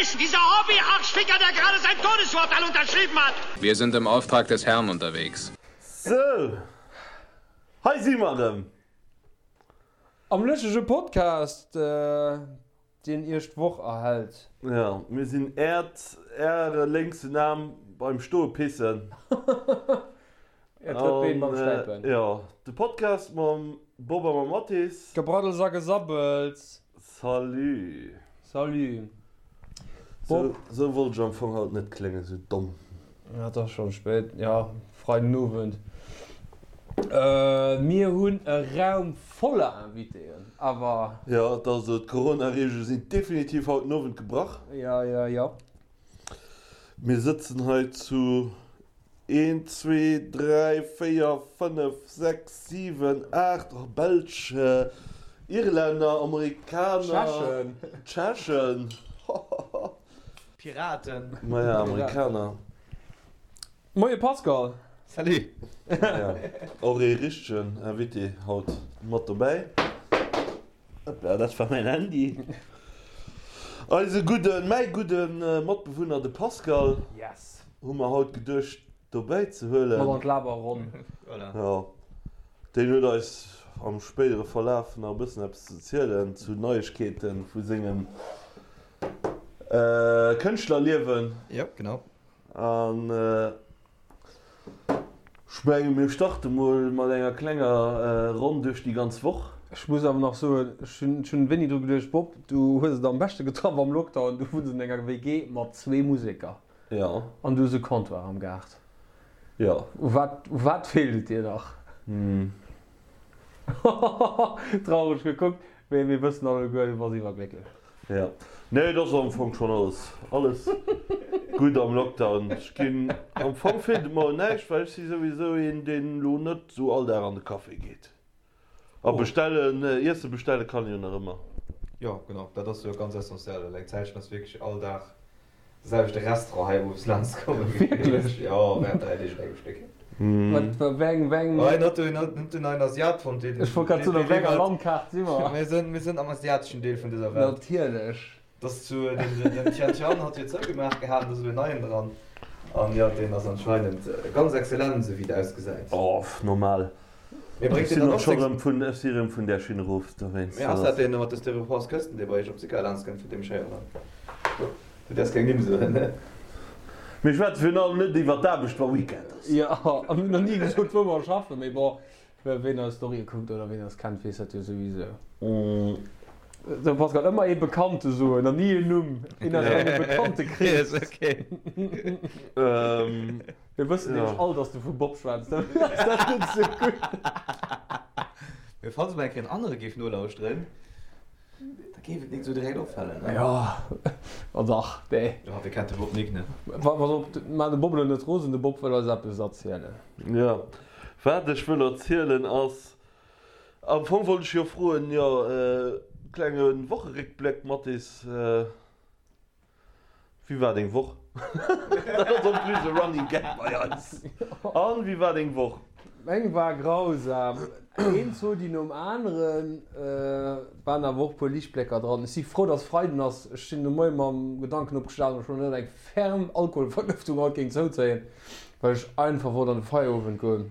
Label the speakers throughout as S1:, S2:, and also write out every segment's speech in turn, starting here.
S1: ist dieser Hobby-Arschficker, der gerade sein Todesurteil unterschrieben hat?
S2: Wir sind im Auftrag des Herrn unterwegs.
S3: Sou, hei si mer erëm.
S4: Am lëschtege Podcast, deen iech d'Woch erhält.
S3: Jo, mir sinn äert, äre lénksen Aarm beim Stoe pissen.
S4: Äert drëtt Been beim Stäipen.
S3: Jo, de Podcast mam Bob a mam Mathis.
S4: Gebraddels a Gesabbels.
S3: Salut.
S4: Salut.
S3: Bob. Sou wollt ech am Fong haut net kléngen, sou domm.
S4: Ja, et ass schon spéit. Ja, Freiden Owend. Mir hunn e Raum voller Invitéen, awer.
S3: Jo, et ass esou, d'Corona-Reegele sinn definitiv haut den Owend gebrach.
S4: Ja, ja, ja.
S3: Mir sëtzen hei zu Een, zwee, dräi, véier, fënnef, sechs, siwen, aacht, oh, Belsch, Irlänner, Amerikaner, Tschechen, hohoho.
S5: Piraten.
S3: Maja, Amerikaner.
S4: Moie Pascal.
S5: Salut.
S3: Maja, och ee richtegen Invité haut mat dobäi. Hoppla, dat war mäin Handy. Eise gudden, mäi gudden Matbewunner, de Pascal.
S4: Yes.
S3: Hu mer haut geduecht dobäi ze huelen.
S4: Mat an d'Laberronn.
S5: Voilà.
S3: Jo, deen huet eis am spéidere Verlaf nach e bëssen eppes ze zielen zu Neiegkeete vu sengem Kënschtlerliewen.
S5: Jo, genau.
S3: An ech menge mir starte mol mat enger klenger Ronn duerch déi ganz Woch.
S4: Ech muss awer nach soen, ech hunn wéini dru geduecht, Bob, du hues et am beschte getraff am Lockdown, du wunns an enger WG mat zwee Museker.
S3: Jo.
S4: An du hues e Comptoir am Gaart.
S3: Jo.
S4: U wat, u wat feelt et dir nach?
S3: Hm.
S4: Traureg gekuckt, mee mir wëssen alleguer, du bass iwwerglécklech.
S3: Jo. Nee, et ass am Fong schonn alles, alles gutt am Lockdown. Ech ginn, am Fong feelt et mer un näischt, well ech si souwisou een, deen elo net esou all Dag an de Café geet. A bestellen, Iesse bestelle kann een jo nach ëmmer.
S5: Jo, genau, dat ass jo ganz essentiell, well eng Zäitchen ass wierklech all Dag de selwechte Restaurant hei owes laanscht kommen.
S4: Wierklech?
S5: Jo, während 3 Deeg un engem Stéck.
S4: Wat, wéi eng, wéi eng.
S5: Oh, en hat do en hat den neien Asiat fonnt, deen.
S4: Ech wollt grad soen, op wéi enger Landkaart si mer?
S5: Mir sinn, mir sinn am asiateschen Deel vun dëser Welt.
S4: Natierlech.
S5: Dass zu den, den Tian Tian hat jo zougemaach gehat, an do ass elo en neien dran. An jo, deen ass anscheinend ganz exzellent, esou wéi et ausgesäit.
S3: Oh, normal.
S5: Mee
S3: Ech
S5: bréngt deen
S3: sinn
S5: dann
S3: och
S5: och
S3: scho
S5: seng.
S3: rëm vun, ech si rëm vun där Schinn erof, dowéinst.
S5: Mee ass dat deen mat de Styropors Kësten, dee bei iech op Sicker laanscht kënnt, vun deem ech héieren hunn? Du däerfs keng Nimm soen, ne?
S3: Mir schwätze virun allem net iwwer d'Aarbecht, wa Weekend ass.
S4: Jo, a mir hunn nach ni gesot, wou mer schaffen, mee bon, ween eis Storye kuckt oder ween eis kennt, weess dat jo souwisou. Sou Pascal, ëmmer ee Bekannte soen an ni een Numm, een aus engem Bekanntekrees. Mir wëssen nämlech all, dass du vum Bob schwätz, dofir ass dat net sou gutt.
S5: Mee falls mol eng Kéier en anere géif nolauschteren, da géif et nik sou direkt opfalen, ne?
S4: Jo, ma dach, dee.
S5: Jo, wie kennt de Bob nik, ne?
S4: Pass op, maach de Bob elo net rosen, de Bob wëll eis eppes erzielen.
S3: Jo, wat ech wëll erzielen ass, am Fong wollt ech jo froen, jo, klenge Wocheréckbléck, Mathis. Wéi war deng Woch? Dat ass en plus e Running Gag bei eis. An, wéi war deng Woch?
S4: Meng war grausam. Een Zodi nom aneren. Et waren awer och e puer Liichtblécker dran. Ech si frou, dass Freiden ass. Ech sinn de Moie mam Gedanken opgestanen, ob ech mol net eng ferm Alkoholvergëftung haut géing zouzéien, well ech einfach wollt an de Feierowend goen.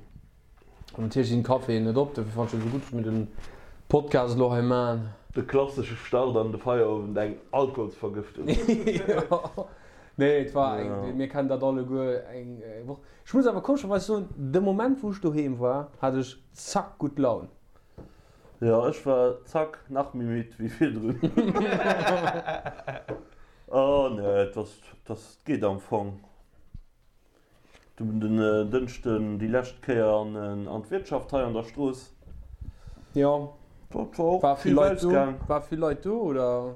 S4: An natierlech sinn d'Caféen net op, dofir fannen ech et esou gutt, dass mir den Podcast elo hei maan.
S3: De klassesche Start an de Feierowend, eng Alkoholsvergëftung.
S4: Jo, nee, et war eng, mir kennen dat alleguer, eng Woch. Ech muss awer komescherweis soen, de Moment wou ech doheem war, hat ech zack gutt Laun.
S3: Jo, ech war zack nach méi midd wéi virdrun. Oh nee, et ass, et ass, et geet am Fong. Dunn den Dënschden déi lescht Kéier an d'Wirtschaft hei an der Strooss.
S4: Jo.
S3: Dat war och vill Ausgang.
S4: War vill Leit do oder?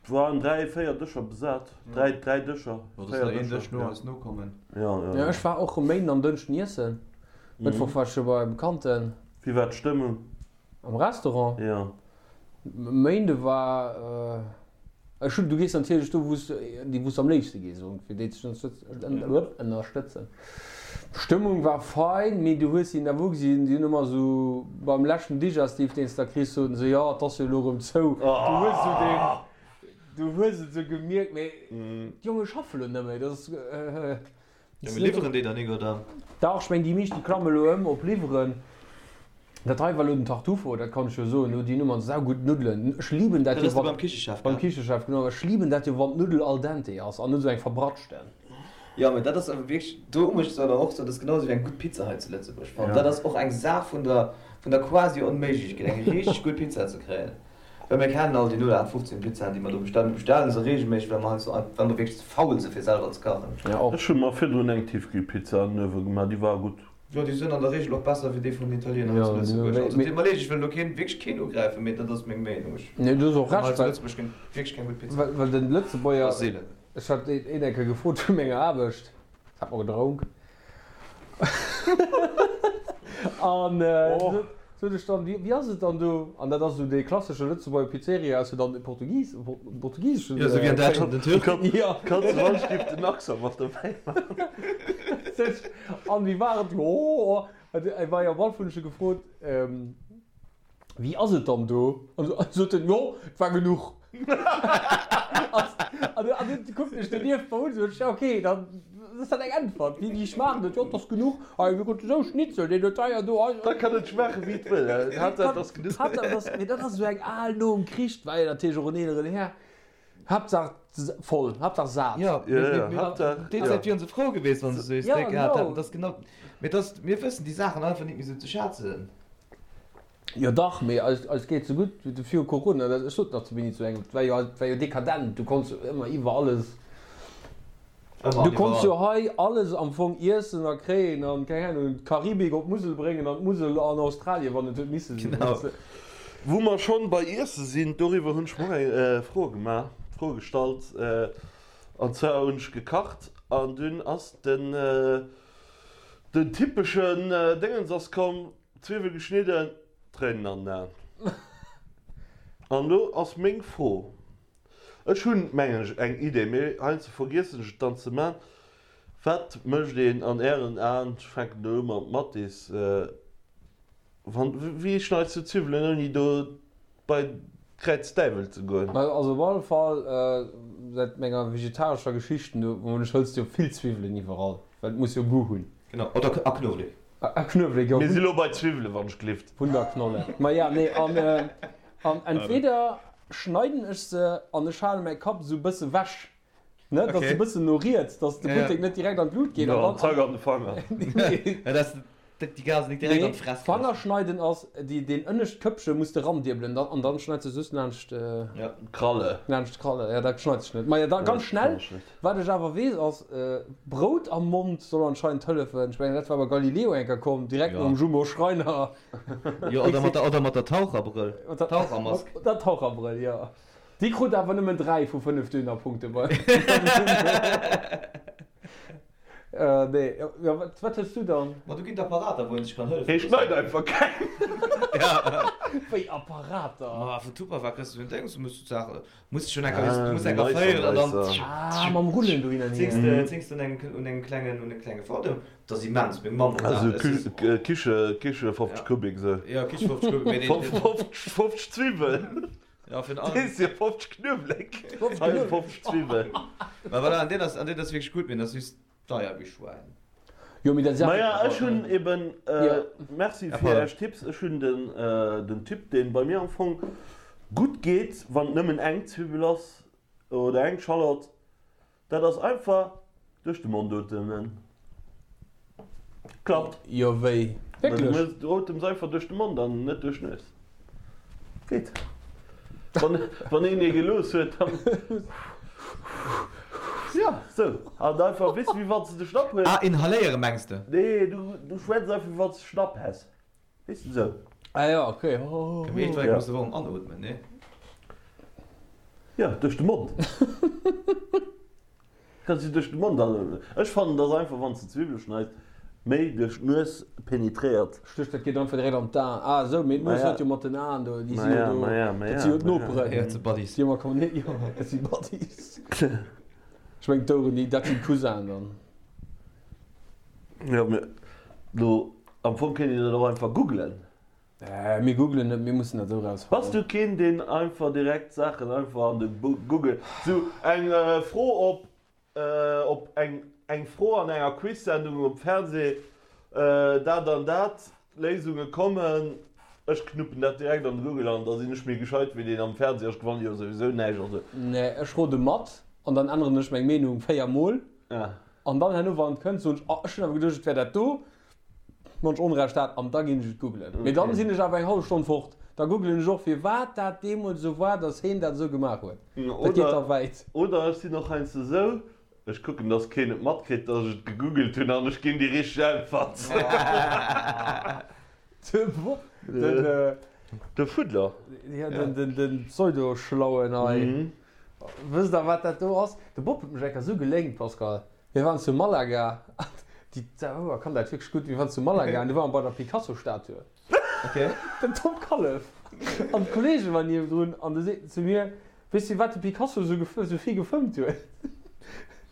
S3: Et waren 3, 4 Dëscher besat. 3, 3 Dëscher.
S5: Jo, dass der een Dësch no eis nokommen.
S3: Jo, jo.
S4: Jo, ech war och e Méinden an Dënschden iessen. Mëttwoch war ech jo bei Bekannten.
S3: Wéi war d'Stëmmung?
S4: Am Restaurant?
S3: Jo.
S4: Méinde war ech hunn, du gees natierlech do wou s déi wou s am léifste gees fir déi ze ënnerstëtzen. D'Stëmmung war fein, mee du hues si awer ugesinn, déi hunn ëmmer esou beim leschten Digestif deen s da kriss soten se, jo et ass jo elo erëm zou. Du hues esou deen. Du hues et sou gemierkt, mee d'Jonge schaffe lo net méi, dat ass.
S5: Jo, mee liwweren déi dann nik, oder?
S4: Dach, ech meng déi meescht déi klamme lo ëm op liwweren. Dat hei war lo den Tartufo, dat kann ech jo soen, do déi Nummern, saugutt Nuddelen. Ech liben dat
S5: Dat
S4: jo
S5: ass de
S4: wann.
S5: beim Kichechef,
S4: Beim
S5: gell?
S4: Kichechef, genau. Ech liben dat jo wann d'Nuddel al dente ass an net sou eng verbratschten.
S5: Jo, mee dat ass awer wierklech, do muss ech awer och soen, dat ass genau esou wéi eng gutt Pizza hei zu Lëtzebuerg fannen. Dat ass och eng Saach vun der, vun der quasi Onméiglechkeet, eng richteg gutt Pizza ze kréien. Well mir kennen all déi 0815 Pizzaen, déi mer do bestellen. Mir bestellen se reegelméisseg, well mer heiansdo einfach, well mer wierklech ze faul si fir selwer ze kachen.
S3: Ech hu mer virdrun eng Tiefkühlpizza an den Uewe gemaach, déi war gutt.
S5: Jo, déi sënn an der Reegel och besser wéi déi vun den Italiener hei zu Lëtzebuerg. Also, deet mer leed, ech wëll elo keen, wierklech keen ugräifen, mee dat ass meng Meenung. Ech
S4: Nee, du hues och
S5: fann hei
S4: Recht,
S5: zu
S4: well,
S5: Lëtzebuerg ginn wierklech keng gutt Pizza.
S4: well, well den Lëtzebuerger,
S5: Ass seelen.
S4: ech hat een eng Kéier gefrot vu menger Aarbecht, hat mer gedronk an sot ech dann, wéi ass et dann do? An dat ass esou dee klassesche Lëtzebuerger Pizzeria, ass jo dann e Portugis, portugiseschen.
S5: Jo, esou wéi an Däitschland den Türk.
S4: Jo.
S3: Kanns du wann giff den Accent mat dobäi maachen.
S4: Sot ech, an wéi war et? Jo, e war jo am Alf hunn ech e gefrot, Wéi ass et dann do? An sot en, Jo, et war genuch. An du kuckt mech donieft mer un, sot ech, Ok, dann ass dat eng Äntwert. Wéi schmaacht et? Jo, et ass genuch. Hei, mir kruten esou Schnitzel, deen huet deier do.
S3: Da kann et schmaache wéi et wëll, Haaptsaach et ass genuch.
S4: Haaptsaach et ass, mee dat ass esou eng al nom Krich, war jo natierlech och en eeleren Här. Haaptsaach voll, Haaptsaach sat.
S5: Jo, déi Zäit wieren se frou gewiescht, wann se esou ee Steak gehat hätten. Dat ass genau, mee dat ass, mir wëssen déi Saachen einfach nit méi esou ze schätzen.
S4: Jo dach, mee eis, eis geet sou gutt wéi viru Corona. Dat, ech sot nach zu Winnie zu engem, et war jo, et war jo dekadent, du konns jo ëmmer iwwer alles,
S5: Ëmmer
S4: du
S5: an
S4: konns jo
S5: iwwerall.
S4: hei alles am Fong iessen a kréien an, keng Ahnung, d'Karibik op d'Musel bréngen an d'Musel an Australien, wann et huet misse sinn,
S5: Genau.
S4: weess de.
S3: Wou mer schonn bei Iesse sinn, doriwwer hunn ech mer och eng Fro gemaach, Fro gestallt, an zwar hunn ech gekacht an dunn ass den, den typeschen Déngens ass komm, Zwiwwel geschnidden, Tréinen an den Aen. An elo ass meng Fro, ech hunn, mengen ech, eng Idee, mee heiansdo vergiessen ech et dann ze man, Wat mécht een an Ären Aen, ech fänken elo u mam Mathis, wann, wéi schneits du Zwiwwelen ouni do bei d'Kräiz Däiwel ze goen?
S4: Also op alle Fall säit menger vegetarescher Geschichten do, ech hëls jo vill Zwiwwelen iwwerall, well et muss jo Goût hunn.
S5: Genau, oder a Knuewelek.
S4: A Knuewelek, jo.
S3: Mir si lo bei Zwiwwelen, wann ech glift.
S4: Wunderknolle. Maja, nee, an, an entweder schneiden ech se an ech hale mäi Kapp esou bësse wech, ne, dass se bëssen no riets, dass de Buttek net direkt an d'Lut geet.
S3: Jo, an zack an de Fanger.
S4: Nee.
S5: Ja, dass déi Gasen net direkt an d'Fress kriss.
S4: Fanger schneiden ass, déi, deen ënnescht Këppche muss de randierbelen, dann, an dann schneits de soss laanscht,
S3: D'Kralle.
S4: laanscht d'Kralle. Ja, dat schneit sech net. Maja, da ganz schnell. Wat ech awer weess ass, Brout am Mond soll anscheinend hëllefen. Ech mengen dat war bei Galileo eng Kéier komm, direkt nom Jumbo Schreiner.
S5: Jo, oder mat der, oder mat der Taucherbrëll, Tauchermask.
S4: Mat der Taucherbrëll, jo. Déi krut awer nëmmen 3 vu 5 Dönerpunkte bei. Nee, jo, wat, wat hues du dann?
S5: Ma do ginn et Apparater, wou een sech kann hëllefe
S3: Hee schneit einfach keng.
S4: Wéi Apparater?
S5: Ma vun Tupperware kriss du en Déngs, du muss d'Saache Muss schon enker, ah, muss enker féieren an dann
S4: ah, mam Rullen do hin an
S5: hier. Zéngst zéngst un engem un engem klengen un engem klenge Fodem. Dat ass immens, meng Mamm huet
S3: Also
S5: dat.
S3: Kü Kiche Kiche 50 Kubik sou.
S5: Ja, Kiche 50 Kubik, mee deen
S3: 50 50 Zwiwwel.
S5: Ja, fir den
S3: Dee si 50 Knuewelek. Hei 50 Zwiwwel.
S5: Ma voilà, an deen ass an deen ass wierklech gutt, mee deen ass just deier wéi Schwäin.
S4: Jo, mee dat ass
S3: Maja, ech hunn eben, merci fir Äech Tipps, ech hunn den den Typ deen bei mir am Fong gutt geet, wann et nëmmen eng Zwiwwel ass oder eng Schallott, dat ass einfach duerch de Mond otemen. Klappt.
S4: Jo, wéi? Wierklech?
S3: Du otems einfach duerch de Mond an net duerch d'Nues. Geet. Wann, wann een ee gelooss huet, dann. Ja, sou. An einfach, weess de, wéi wann s de de Schnapp hues.
S5: Ah, inhaléiere mengs de?
S3: Nee, du, du schwätz einfach, wéi wann s de Schnapp häss. Weess de, sou.
S4: Ah ja, okay.
S5: Mee iergendwann muss de awer och anootmen, nee?
S3: Ja, duerch de Mond. Kanns du duerch de Mond an. Ech fannen dass einfach wanns de Zwiwwele schneis méi duerch d'Nues penetréiert.
S4: Stécht dat geet einfach direkt an d'Aen. Ah esou, mee d'Nues huet jo mat den Aen do, déi si jo do, dat si jo d'Noperen.
S5: Jo, dat si Buddies.
S4: Déi hu mer kommen, jo, dat si Buddies. Ech mengen d'Oueren, déi, dat sinn d'Cousinen dann.
S3: Jo, mee lo am Fong kéint een dat och einfach googlen.
S4: Mir googlen net, mir mussen dat esou rausfannen.
S3: Bass du keen deen einfach direkt Saachen einfach an de Google, sou eng Fro op op eng eng Fro an enger Quiz-Sendung um Fernseh, dat an dat, Léisunge kommen, ech knuppen dat direkt an de Google an da sinn ech méi gescheit wéi deen am Fernseh, ech gewanne jo souwisou näischt, also.
S4: Nee, ech rode mat an dann änneren ech meng Meenung 4 mol an dann herno wann et kënnt soen ech, oh ech hunn awer geduecht et wär dat do, wann ech Onrecht hat an da ginn ech et googlen. Mee dann sinn ech awer eng hallef Stonn fort, da googlen ech och firwat dat deemools esou war, datt heen dat esou gemaach huet. Dat geet da wäit.
S3: Oder ech sinn och heiansdo esou, Ech kucken dass keen et matkritt dass ech et gegoogelt hunn an ech ginn déi richteg Äntwert. De Fuddler.
S4: Jo, den Pseudo-Schlauen hei. Wësst der wat dat do ass? De Bob huet mech eng Kéier esou geléngt, Pascal. Mir waren zu Malaga, déi Zauber kann dat wierklech gutt, mir waren zu Malaga an du ware mer bei der Picasso-Statue. Den Tom Kallef an d'Kollege waren niewendrun an du seet en zu mir, Weess de wat de Picasso esou vill gefëmmt huet?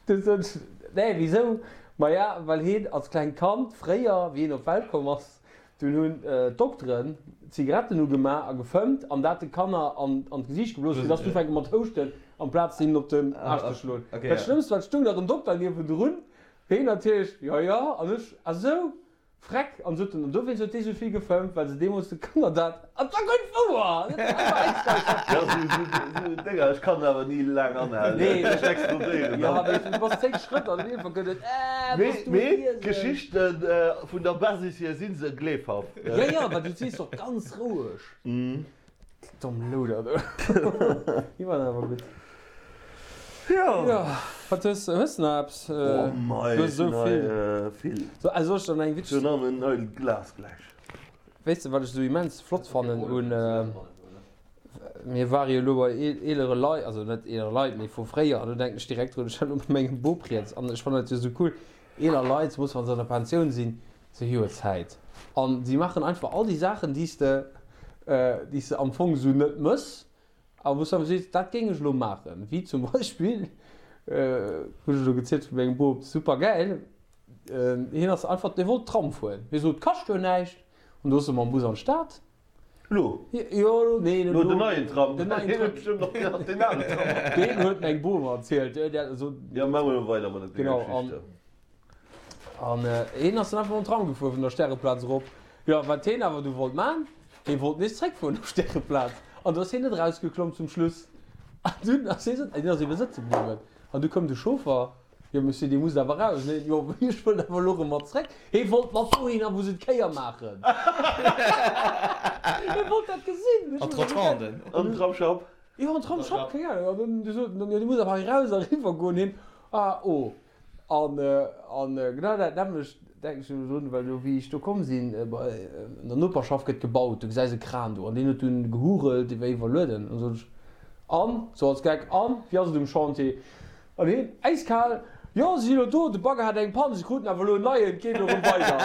S4: Du sot ech, Nee, wisou? Maja, well heen als klengt Kand fréier, wéi heen op d'Welt komm ass, dunn hunn d'Dokteren Zigaretten ugemaach a gefëmmt an dat de Kanner an d'Gesiicht geblosen, fir dass se ufänke mat houschten, amplaz hinnen op den Aarsch ze schloen. Dat Schlëmmst war, et stoung nach en Dokter niewendrun, heen natierlech, Jo, jo, an ech, Ah sou? Freck! An sot en, an dowéinst huet dee sou vill gefëmmt, well se deemools de Kanner dat, an 't war guer net wouer! Dat war einfach äiskal
S3: Jo, sou, sou Dénger, ech kann awer ni laang anhalen,
S4: Nee,
S3: ech explodéieren
S4: jo,
S3: dann.
S4: mee du bass 10 Schrëtt an iergendwann gëtt et, Äh,
S3: Mee,
S4: bass du e
S3: mee
S4: Riesen?
S3: d'Geschichten vun der Basis hier si se gleefhaft.
S4: Jo, jo, well du sees och ganz roueg. Domm Louder do. Déi waren awer gutt.
S3: Jo.
S4: Jo, wat hues hues de nach eppes?
S3: Oh mei,
S4: Du hues
S3: ech
S4: esou
S3: hunn hei
S4: vill.
S3: vill.
S4: So, also soll ech der nach eng
S3: Ech hunn
S4: witzeg.
S3: nach en neit Glas gläich.
S4: Weess de wat ech esou immens flott fannen un, mir ware jo elo bei eelere Leit, also net eelere Leit, mee vu fréier, an do denken ech direkt drun, ech war elo bei mengem Bop riets an ech fannen dat jo esou cool, eeler Leit, zemools wa se an der Pensioun sinn, Se hu jo Zäit an si maachen einfach all déi Saachen, déi s de, déi s de am Fong esou net mëss, a wou s de awer sees, dat géing ech elo maachen. Wéi zum Beispill, hunn ech elo gezielt vu mengem Bop, super gäil, hien ass einfach, dee wollt Tram fueren. Hie sot, kascht jo näischt. An du ass e mam Bus an d'Stad.
S3: Elo?
S4: Jo, elo, nee, net
S3: Elo
S4: elo.
S3: den neien Tram.
S4: Den neien
S3: Hien
S4: Tram.
S3: huet bestëmmt och nach deen alen Tram.
S4: Deen huet meng Bom erzielt. Déi hat esou.
S3: Jo, maache mer elo weider mat denger
S4: Genau, an.
S3: Geschicht.
S4: An hien ass dann einfach mam Tram gefuer vun der Stäreplaz erop. Jo, wat hien awer du wollt man, hie wollt nees zréckfueren op Stäreplaz. An du ass hien net erausgeklomm zum Schluss. An dunn ass hie sëtz, hien ass ebe sëtze bliwwen. An du koum de Chauffer, Jo Monsieur, Dir musst awer raus. Nee, jo, ech wëll awer elo erëm mat zréck. Hie wollt mat dohinner, wou se d'Kéier maachen. Hie wollt dat gesinn.
S5: An d'Rotonden.
S3: An den Tramsschapp.
S4: Jo, an d'Tramsschapp, keng Ahnung. An dunn du sot en, jo, Dir musst awer hei raus a eriwwer goen. Hien, Ah, oh. An, an genau dat nämmlecht denken ech elo drun, well do, wéi ech do komm sinn, bei, an der Noperschaft gëtt gebaut, du gesäis e Kran do, an deen huet dunn gehurelt, dee war iwwerlueden. An sot ech, An? Sou als Geck, An, wéi ass et um Chantier? An hien, äiskal, Jo, si sinn elo do, de Bagger hat eng Pann, si kruten awer elo en neien, et geet elo erëm weider.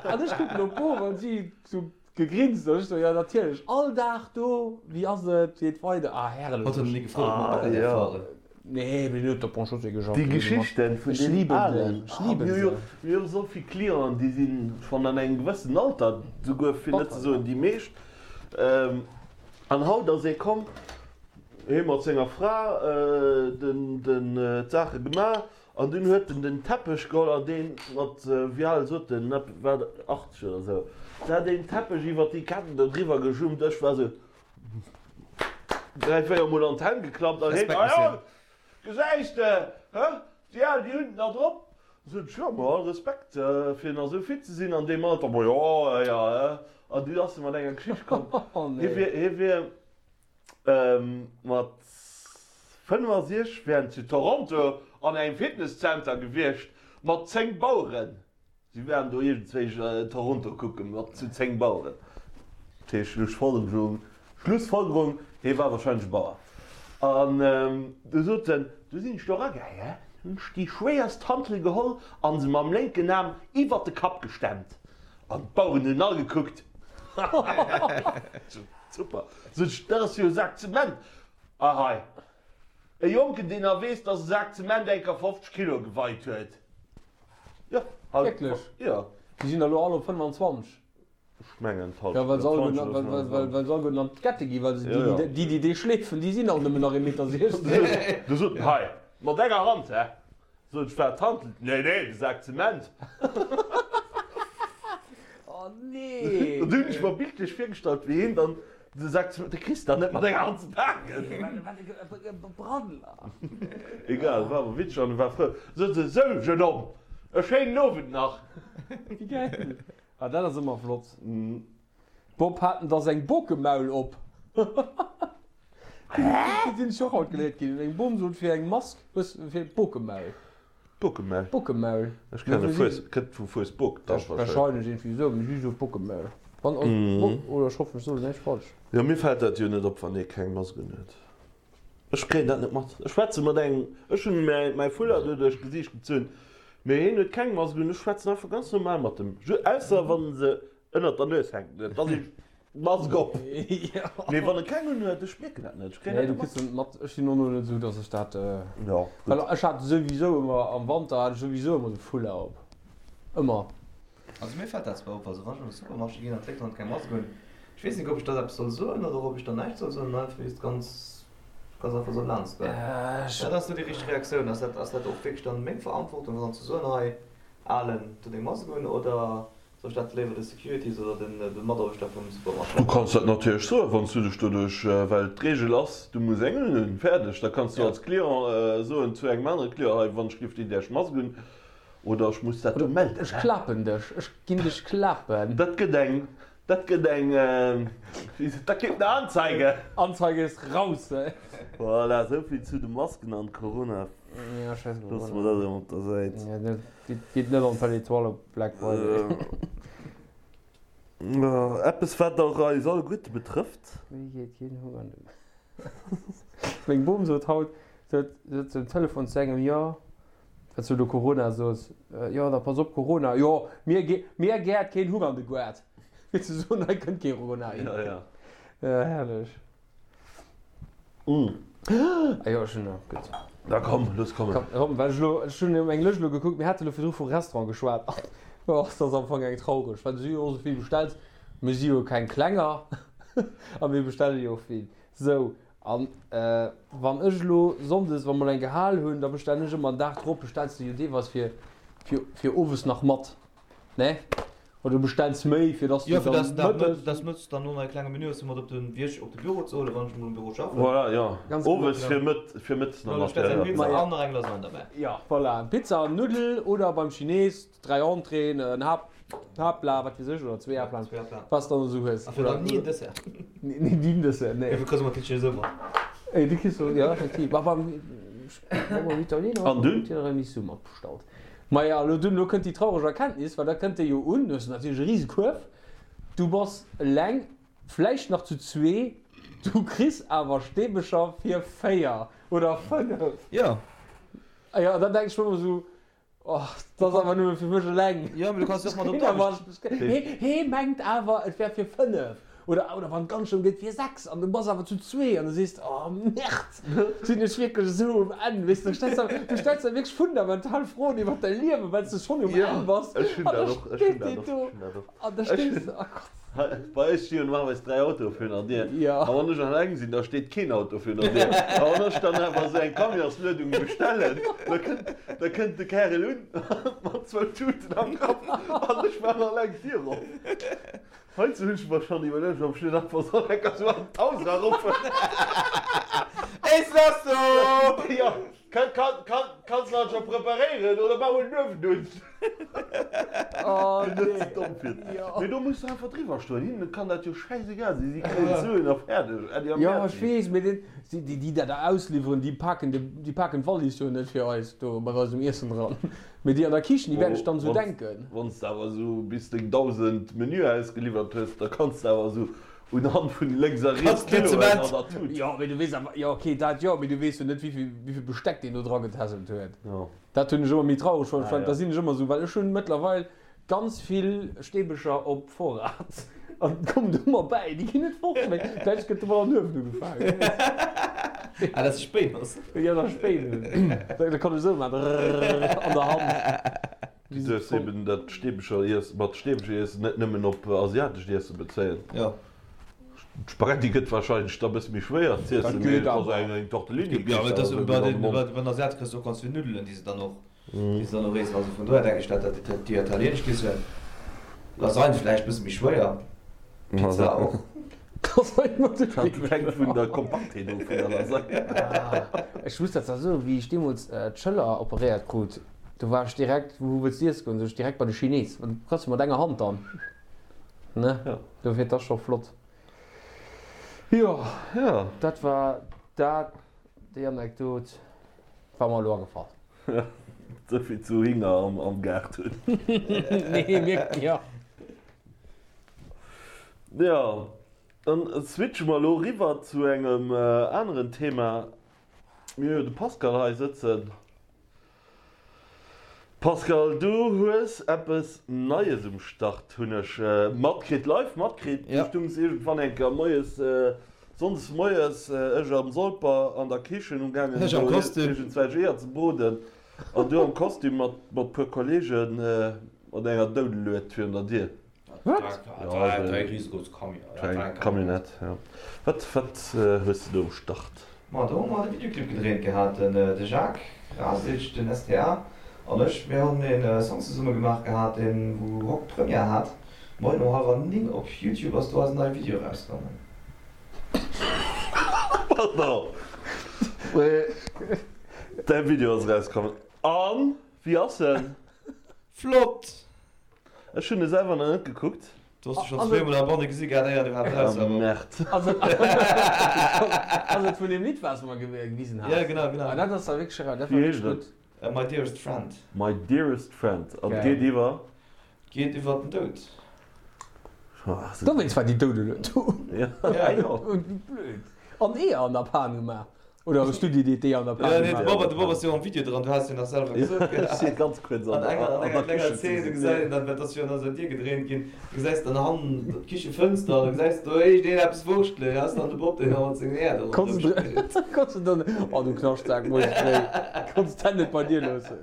S4: An ech kucken op d'Bof an si sou Gegrinst an ech sou, jo natierlech, all Dag do, wéi ass et, wéi geet weider, ah herrlech.
S5: Hatt huet ni gefrot ob mer
S3: Ah
S5: Bagger däerf
S3: jo.
S5: fahren.
S4: Nee, mee den huet op Bon Chaussée geschafft.
S3: Déi Geschichten vun
S4: Ech
S3: deenen
S4: liben déi,
S3: Alen,
S4: ech
S3: ah
S4: liben
S3: mir hu jo,
S4: se.
S3: mir hu sou vill Clienten, déi si schonn an engem gewëssen Alter, souguer fir net ze
S4: Batter,
S3: soen
S4: ja.
S3: déi meescht, an haut ass ee komm, hee mat senger Fra den, den, d'Saache gemaach An dunn huet en den Teppech geholl an deen mat, wéi al sot en, war 80 oder sou, da deen Teppech iwwert déi Ketten do driwwer gejummt. Ech war sou 3, 4 mol an d'Hänn geklappt an heen,
S5: Respekt,
S3: Ah jo,
S5: Monsieur.
S3: gesäis de, hë, déi al, déi hunn et nach drop. Sot ech, jo, ma all Respekt, fir nach sou fit ze sinn an deem Alter. Ma jo, jo, hë. An du ass e mat enger Geschicht komm, hie wier, hie wier. Mat 65 wär en zu Toronto an engem Fitnesszenter gewiescht mat 10 Baueren. Si waren do iergendzwéi Toronto kucke mat zu 10 Baueren. Dat heescht Schlussfolgerung, Schlussfolgerung, hie war warscheinlech e Bauer. An du sot en, du sinn ech do eragaangen, hunn ech déi schwéierst Hantel geholl an se mam lénken Aarm iwwert de Kapp gestemmt. An d'Baueren hunn all gekuckt. Super. Sot ech, dat ass jo e Sak Zement. A hei, e Jonken, deen nach weess, dass e Sak Zement eng Kéier 50 Kilo geweit huet. Jo, haut.
S4: Wierklech?
S3: Jo.
S4: Déi sinn der elo all op 25.
S3: Ech mengen
S4: d'Hallschent. Jo, well se alleguerten, well se alleguerten an d'Kette ginn, well se déi, déi, déi dee schleefen, déi sinn all nëmmen nach ee Meter 60.
S3: Du sot en, Hei, mat enger Hand, hä? Sot ech, Wat, d'Hantel? Nee, nee, de Sak Zement.
S4: Oh nee!
S3: Dat hunn ech mer bildlech virgestallt, wéi hien dann de Sak Zement, de kriss de dann net mat enger Hand ze paken.
S4: Brandler.
S3: Egal, war awer witzeg an e war frou. Sot se, Sou, jeune homme, e schéinen Owend nach.
S4: Wéi gäil! Ah, dat ass ëmmer flott. Bob, Hat en da seng Bokemaul op? Déi sinn ech och haut geléiert ginn. Eng Bom sot fir eng Mask, hues fir Bokemaul.
S3: Bokemaul?
S4: Bokemaul.
S3: Ech kenne Fues, kënnt vu Fuesbok
S4: da wahrscheinlech. Wahrscheinlech iergendwéi esou, mee si sot Bokemaul. Wann, oder ech hoffen ech soen näischt falsch.
S3: Jo, mir fält dat jo net op, wann ee keng Mask unhuet. Ech kréien dat net mat. Ech schwätze mat engem, ech hunn mäi Foulard do duerch d'Gesiicht gezunn, mee hien huet keng Mask un. Ech schwätzen einfach ganz normal mat em, ausser wann se ënnert der Nues hänkt, da si Mask op. Mee wann e keng un huet, ech mierken dat net, ech kréien
S4: dat net mat. Nee, du kriss dat net mat. Ech sinn och net esou, datt ech dat, well ech hat souwisou ëmmer, am Wanter hat ech souwisou ëmmer de Foulard op, ëmmer.
S5: Also mir fält dat zwar op, also wann ech an de Supermarché ginn an d'Léit hunn keng Mask un, ech weess net ob ech dann eppes soll soen oder ob ech dann näischt soll soen an einfach just ganz ganz einfach soll laanscht goen. Wat ass do déi richteg Reaktioun? Ass dat ass dat och wierklech dann meng Verantwortung dann ze soen, hei Alen, do deng Mask un oder soll ech dat léiwer de Securities oder den de Mataarbechter vum Supermarché
S3: Du kanns dat natierlech soen, wann s du dech doduerch, well d'Reegel ass, du muss eng unhunn, fäerdeg. Da kanns du als Client soen zu engem anere Client, hei wann ech géif déi däerch Mask un. Oder ech muss dat do melden.
S4: Ech klapen dech, ech ginn dech klapen.
S3: Dat gëtt eng, dat gëtt eng, dat gëtt eng Anzeige.
S4: Anzeige ist raus.
S3: Voilà, esou vill zu de Masken an Corona.
S4: Ja, scheiss op
S3: Loosse mer dat emol op der Säit.
S4: Ja, dat geet net an d'Belle Etoile op Black Friday.
S3: Eppes wat och eis alleguerte betrëfft.
S4: Wéi geet keen Hunger no. Meng Bom sot haut, se huet um Telefon zu engem, jo, wat s du do Corona sos, jo da pass op Corona, jo mir mir gäert keen Hunger an de Goart, fir ze soen hei kënnt kee Corona hin.
S3: Ja, ja.
S4: Ja, herrlech. Ah jo, ech hunn nach, gutt.
S3: Da komm, looss kommen.
S4: Komm, komm, well ech elo, ech hunn eng Lëscht elo gekuckt, mir hate elo virdru vu Restaurant geschwat, oh, dat ass am Fong eng traureg, well du si jo och esou vill bestells, mir si jo keng Klenger a mir bestelle jo och vill. Sou, an wann ech elo sonndes, wa mer eng gehal hunn, da bestellen ech ëmmer en Dag drop, bestells de jo deelweis fir, fir, fir owes nach mat, ne? Oder du bestells méi, fir dass du
S5: Jo, fir
S4: dann
S5: dass den Dag
S4: mëttes.
S5: dass mëttes dann no e klenge Menü hues, fir mat op de Wierk, op de Büro ze huelen, wann ech emol um Büro schaffen.
S3: Voilà, jo.
S4: Ganz genau.
S3: Owes fir mëtt, fir mëttes nach
S5: Du
S3: mat,
S5: bestells
S3: ja,
S5: eng
S3: ja.
S5: Pizza an nach eng Lasagne derbäi.
S4: Jo, voilà, Pizza an Nuddel oder beim Chines 3 Entréeën, en Haupt, Haaptplat, wat weess ech, oder zwee Haaptplaten,
S5: Zwee Haaptplaten.
S4: wat s de dann esou hues.
S5: A fir dann ni en Dessert.
S4: Ni en Dessert, nee.
S5: Dofir kriss du ëmmer d'Kitchen esou mat.
S4: Ey, du kriss, jo, effektiv. Ma beim, beim Italiener
S3: An dunn?
S4: Tiramisu mat bestallt. Maja, elo dunn, elo kënnt déi traureg Erkenntnis, well da kënnt dee jo un, du hues natierlech e rise Kuerf, du bass eleng, vläicht nach zu zwee, du kriss awer Steebecher fir 4 oder 5.
S5: Jo.
S4: A jo, an dann denk ech mer ëmmer esou, Oh, dat ass awer nëmme fir mech eleng.
S5: Jo, mee du kanns jo och mat op d'Aarbecht.
S4: Hee mengt awer, et wär fir 5. Oder, oder wann et ganz schlëmm gëtt, fir 6. An du bass awer zu zwee an du sees, Oh Merde, sinn ech wierklech esou um Enn? Weess de, du stells der, du stells der wierklech fundamental Froen iwwer däi Liewen, well s de schonn um Enn bass.
S3: Ech hunn
S4: An da
S3: dat och, ech hunn
S4: steet
S3: dat
S4: deen
S3: och,
S4: do
S3: ech hunn dat och.
S4: an da
S3: Ech
S4: stees de, oh Gott.
S3: Bei eis sti jo normalerweis 3 Autoe virun der Dier.
S4: Jo.
S3: A wann ech eleng sinn, da steet keen Auto virun der Dier. A wann ech dann awer esou eng Camionsluedung bestellen, da kënnt, da kënnt de Kärel un mat zwou Tuten am Kapp an ech maachen eleng d'Dier op. Heizou hunn ech mer schonn iwwerluecht, ob ech net einfach soll enker esou an d'Haus eraruffen.
S5: Is das so?
S3: Jo, kann, kann, kann, kanns de dat scho preparéieren oder maach mol den Uewen un.
S4: Oh
S3: Net ze
S4: nee.
S3: domm fir.
S4: Jo.
S3: Mee do muss de einfach driwwer stoen. Hinnen kann dat jo schäisegal sinn. Si kréien d'Suen a fäerdeg. Äddi a
S4: Jo, ech
S3: Merci.
S4: weess, mee den, déi, déi, déi dat da ausliwweren, déi paken de, déi paken d'Wallis jo net fir eis do mat eisem Iessen dran. Mee déi an der Kichen, déi wäerten sech dann esou denken.
S3: Wann s de awer esou bis deng 1.000 Menüer ausgeliwwert hues, da kanns de awer esou unhand vun lénks a riets Kiloen an der Tut.
S4: Jo, mee du weess awer, jo ok, dat jo, mee du weess jo net, wéivill, wéivill Besteck deen do dra getässelt huet.
S3: Jo.
S4: Dat hunn ech ëmmer méi traureg fonnt,
S3: Ah, ja.
S4: da sinn ech ëmmer esou, well ech hunn mëttlerweil ganz vill Steebecher op Vorrat an et kommen ëmmer bäi, déi ginn net fort, mee vläicht gëtt domat an Uewen ugefaangen, wee weess.
S5: Ah, dass de Spéin hues.
S4: Jo, dass ech Spéin hunn. Da kann ech esou maachen, drrrr, an der Hand.
S3: Du duerfs eben dat Steebecher Iessen, mat Steebecher Iessen net nëmmen op asiatescht Iesse bezéien.
S5: Jo.
S3: D'Spaghetti gëtt wahrscheinlech da bësse méi schwéier z'iessen, mee et ass eng eng Tortellini
S5: Jo, mee et ass bei den bei den Asiate kriss de och ganz vill Nuddelen, déi se dann och déi se dann och iessen. Also vun dohier denken ech, dat dat déi italienesch Kichen, Lasagne vläicht bësse méi schwéier, Pizza och.
S4: Lasagne mat de
S3: Dat hänkt vun der Kompaktheet of vun der Lasagne.
S4: Ech muss dat zwar soen, wéi ech deemools d'Schëller operéiert krut, do war ech direkt, wou wëlls de iesse goen, sot ech direkt bei de Chines, well du kanns jo mat enger Hand dann, ne?
S3: Jo.
S4: Dofir, et ass scho flott. Jo,
S3: Jo.
S4: dat war dat, déi Anekdot war mer elo agefall.
S3: Souvill zu Hinger am Gaart hunn.
S4: Nee, mir, jo.
S3: Jo, dann switche mer elo eriwwer zu engem aneren Thema. Mir hu jo de Pascal hei sëtzen. Pascal, du hues eppes Neies um Start, hunn ech matkritt, live matkritt. Du stungs iergendwann eng Kéier moies, sonndes moies, ech am Solper an der Kichen umgaangen, do iergendzwelch Eeër ze broden, an du am Kostüm mat puer Kollegen mat enger Doudelued virun der Dier.
S4: Wat?
S3: Ja, eng riesegroß Camionnette, ja. Wat, wat hues de do um Start?
S5: Ma do hu mer de Videoclip gedréint gehat, den de Jacques Rasic, den STA an ech. Mir hunn een Song zesumme gemaach gehat, deen wou Rock Première hat. Moien um hallwer 9 op Youtube ass do eisen neie Video erausgaangen.
S3: Pardon, mee däi Video ass erauskomm. An wéi ass en?
S5: Flott!
S3: Ech hunn e selwer nach net gekuckt.
S5: Du has dech schonn zweemol am Banne gesi gehat, éier du iwwerhaapt raus war.
S3: Merde.
S4: Ass et vun deem Lidd, wat s de mer gewisen has?
S5: Ja, genau, genau.
S4: Ah, dat ass da wierklech eraus. Dat war
S3: Wéi heescht
S4: wierklech gutt.
S3: et?
S5: My Dearest Friend.
S3: My Dearest Friend. An et geet iwwer?
S5: Geet iwwer den Doud.
S4: Dowéinst war déi Doudelued do.
S3: Ja, jo.
S4: Wéi blöd. An Eeër an der Pan gemaach. Oder hues du déi Idee an der
S5: Pan gemaach? Nee, de Bob, de Bob ass jo am Video dran, du has jo nach selwer gesot.
S3: Ech si ganz kuerz an
S5: der
S3: Kichen.
S5: An enger Zeen, du gesäis dann, dat ass jo an eiser Dier gedréint ginn, du gesäis dann hannen d'Kichefënster an du gesäis do iergendeen eppes wurschtelen, ass dann de Bob, deen da mat sengen Äer do
S4: ronderëm spillt. Konns de dann, oh du Knaschtsak, muss ech méi, konns d'Hänn net bei dir loossen.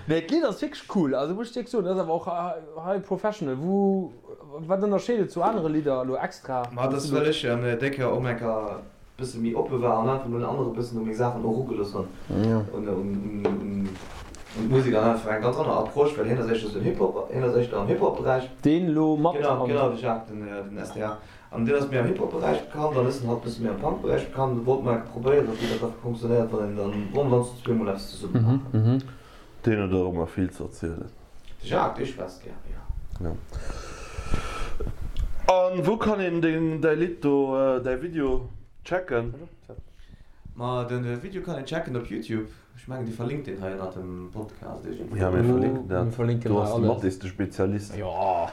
S4: Nee, d'Lidd ass wierklech cool, also muss ech wierklech soen, dat ass awer och high professional. Wou, wat ënnerscheet et zu anere Lidder elo extra?
S5: Ma dat ass well ech déi Kéier och eng Kéier bësse méi oppe war an einfach mol en anere bëssen u meng Saachen och erugelooss hunn, un d'Musek an einfach eng ganz aner Approche, well hien ass éischter sou den Hip-Hop, hien ass éischter am Hip-Hop-Beräich.
S4: Deen elo mat
S5: Genau, genau, de Jacques, den den SDA. An deen ass méi am Hip-Hop-Beräich bekannt an ech sinn halt bësse méi am Punk-Beräich bekannt. An do wollte mer enke probéieren, wéi dat da funktionéiert, wann een dann, wa mer dann zu zwee mol eppes zesumme maachen.
S3: Deen huet och ëmmer vill ze erzielen.
S5: De Jacques, dee schwätzt gär, jo.
S3: Jo. An wou kann een deng, däi Lidd do, däi Video checken?
S5: Ma den Video kann een checken op Youtube. Ech mengen dir verlinkt deen hei ënnert dem Podcast iergendwou.
S3: Ja mir verlinken dat.
S4: Mir verlinken
S3: Do
S4: hei
S3: ass de
S4: alles.
S3: Mathis de Spezialist
S4: Jo.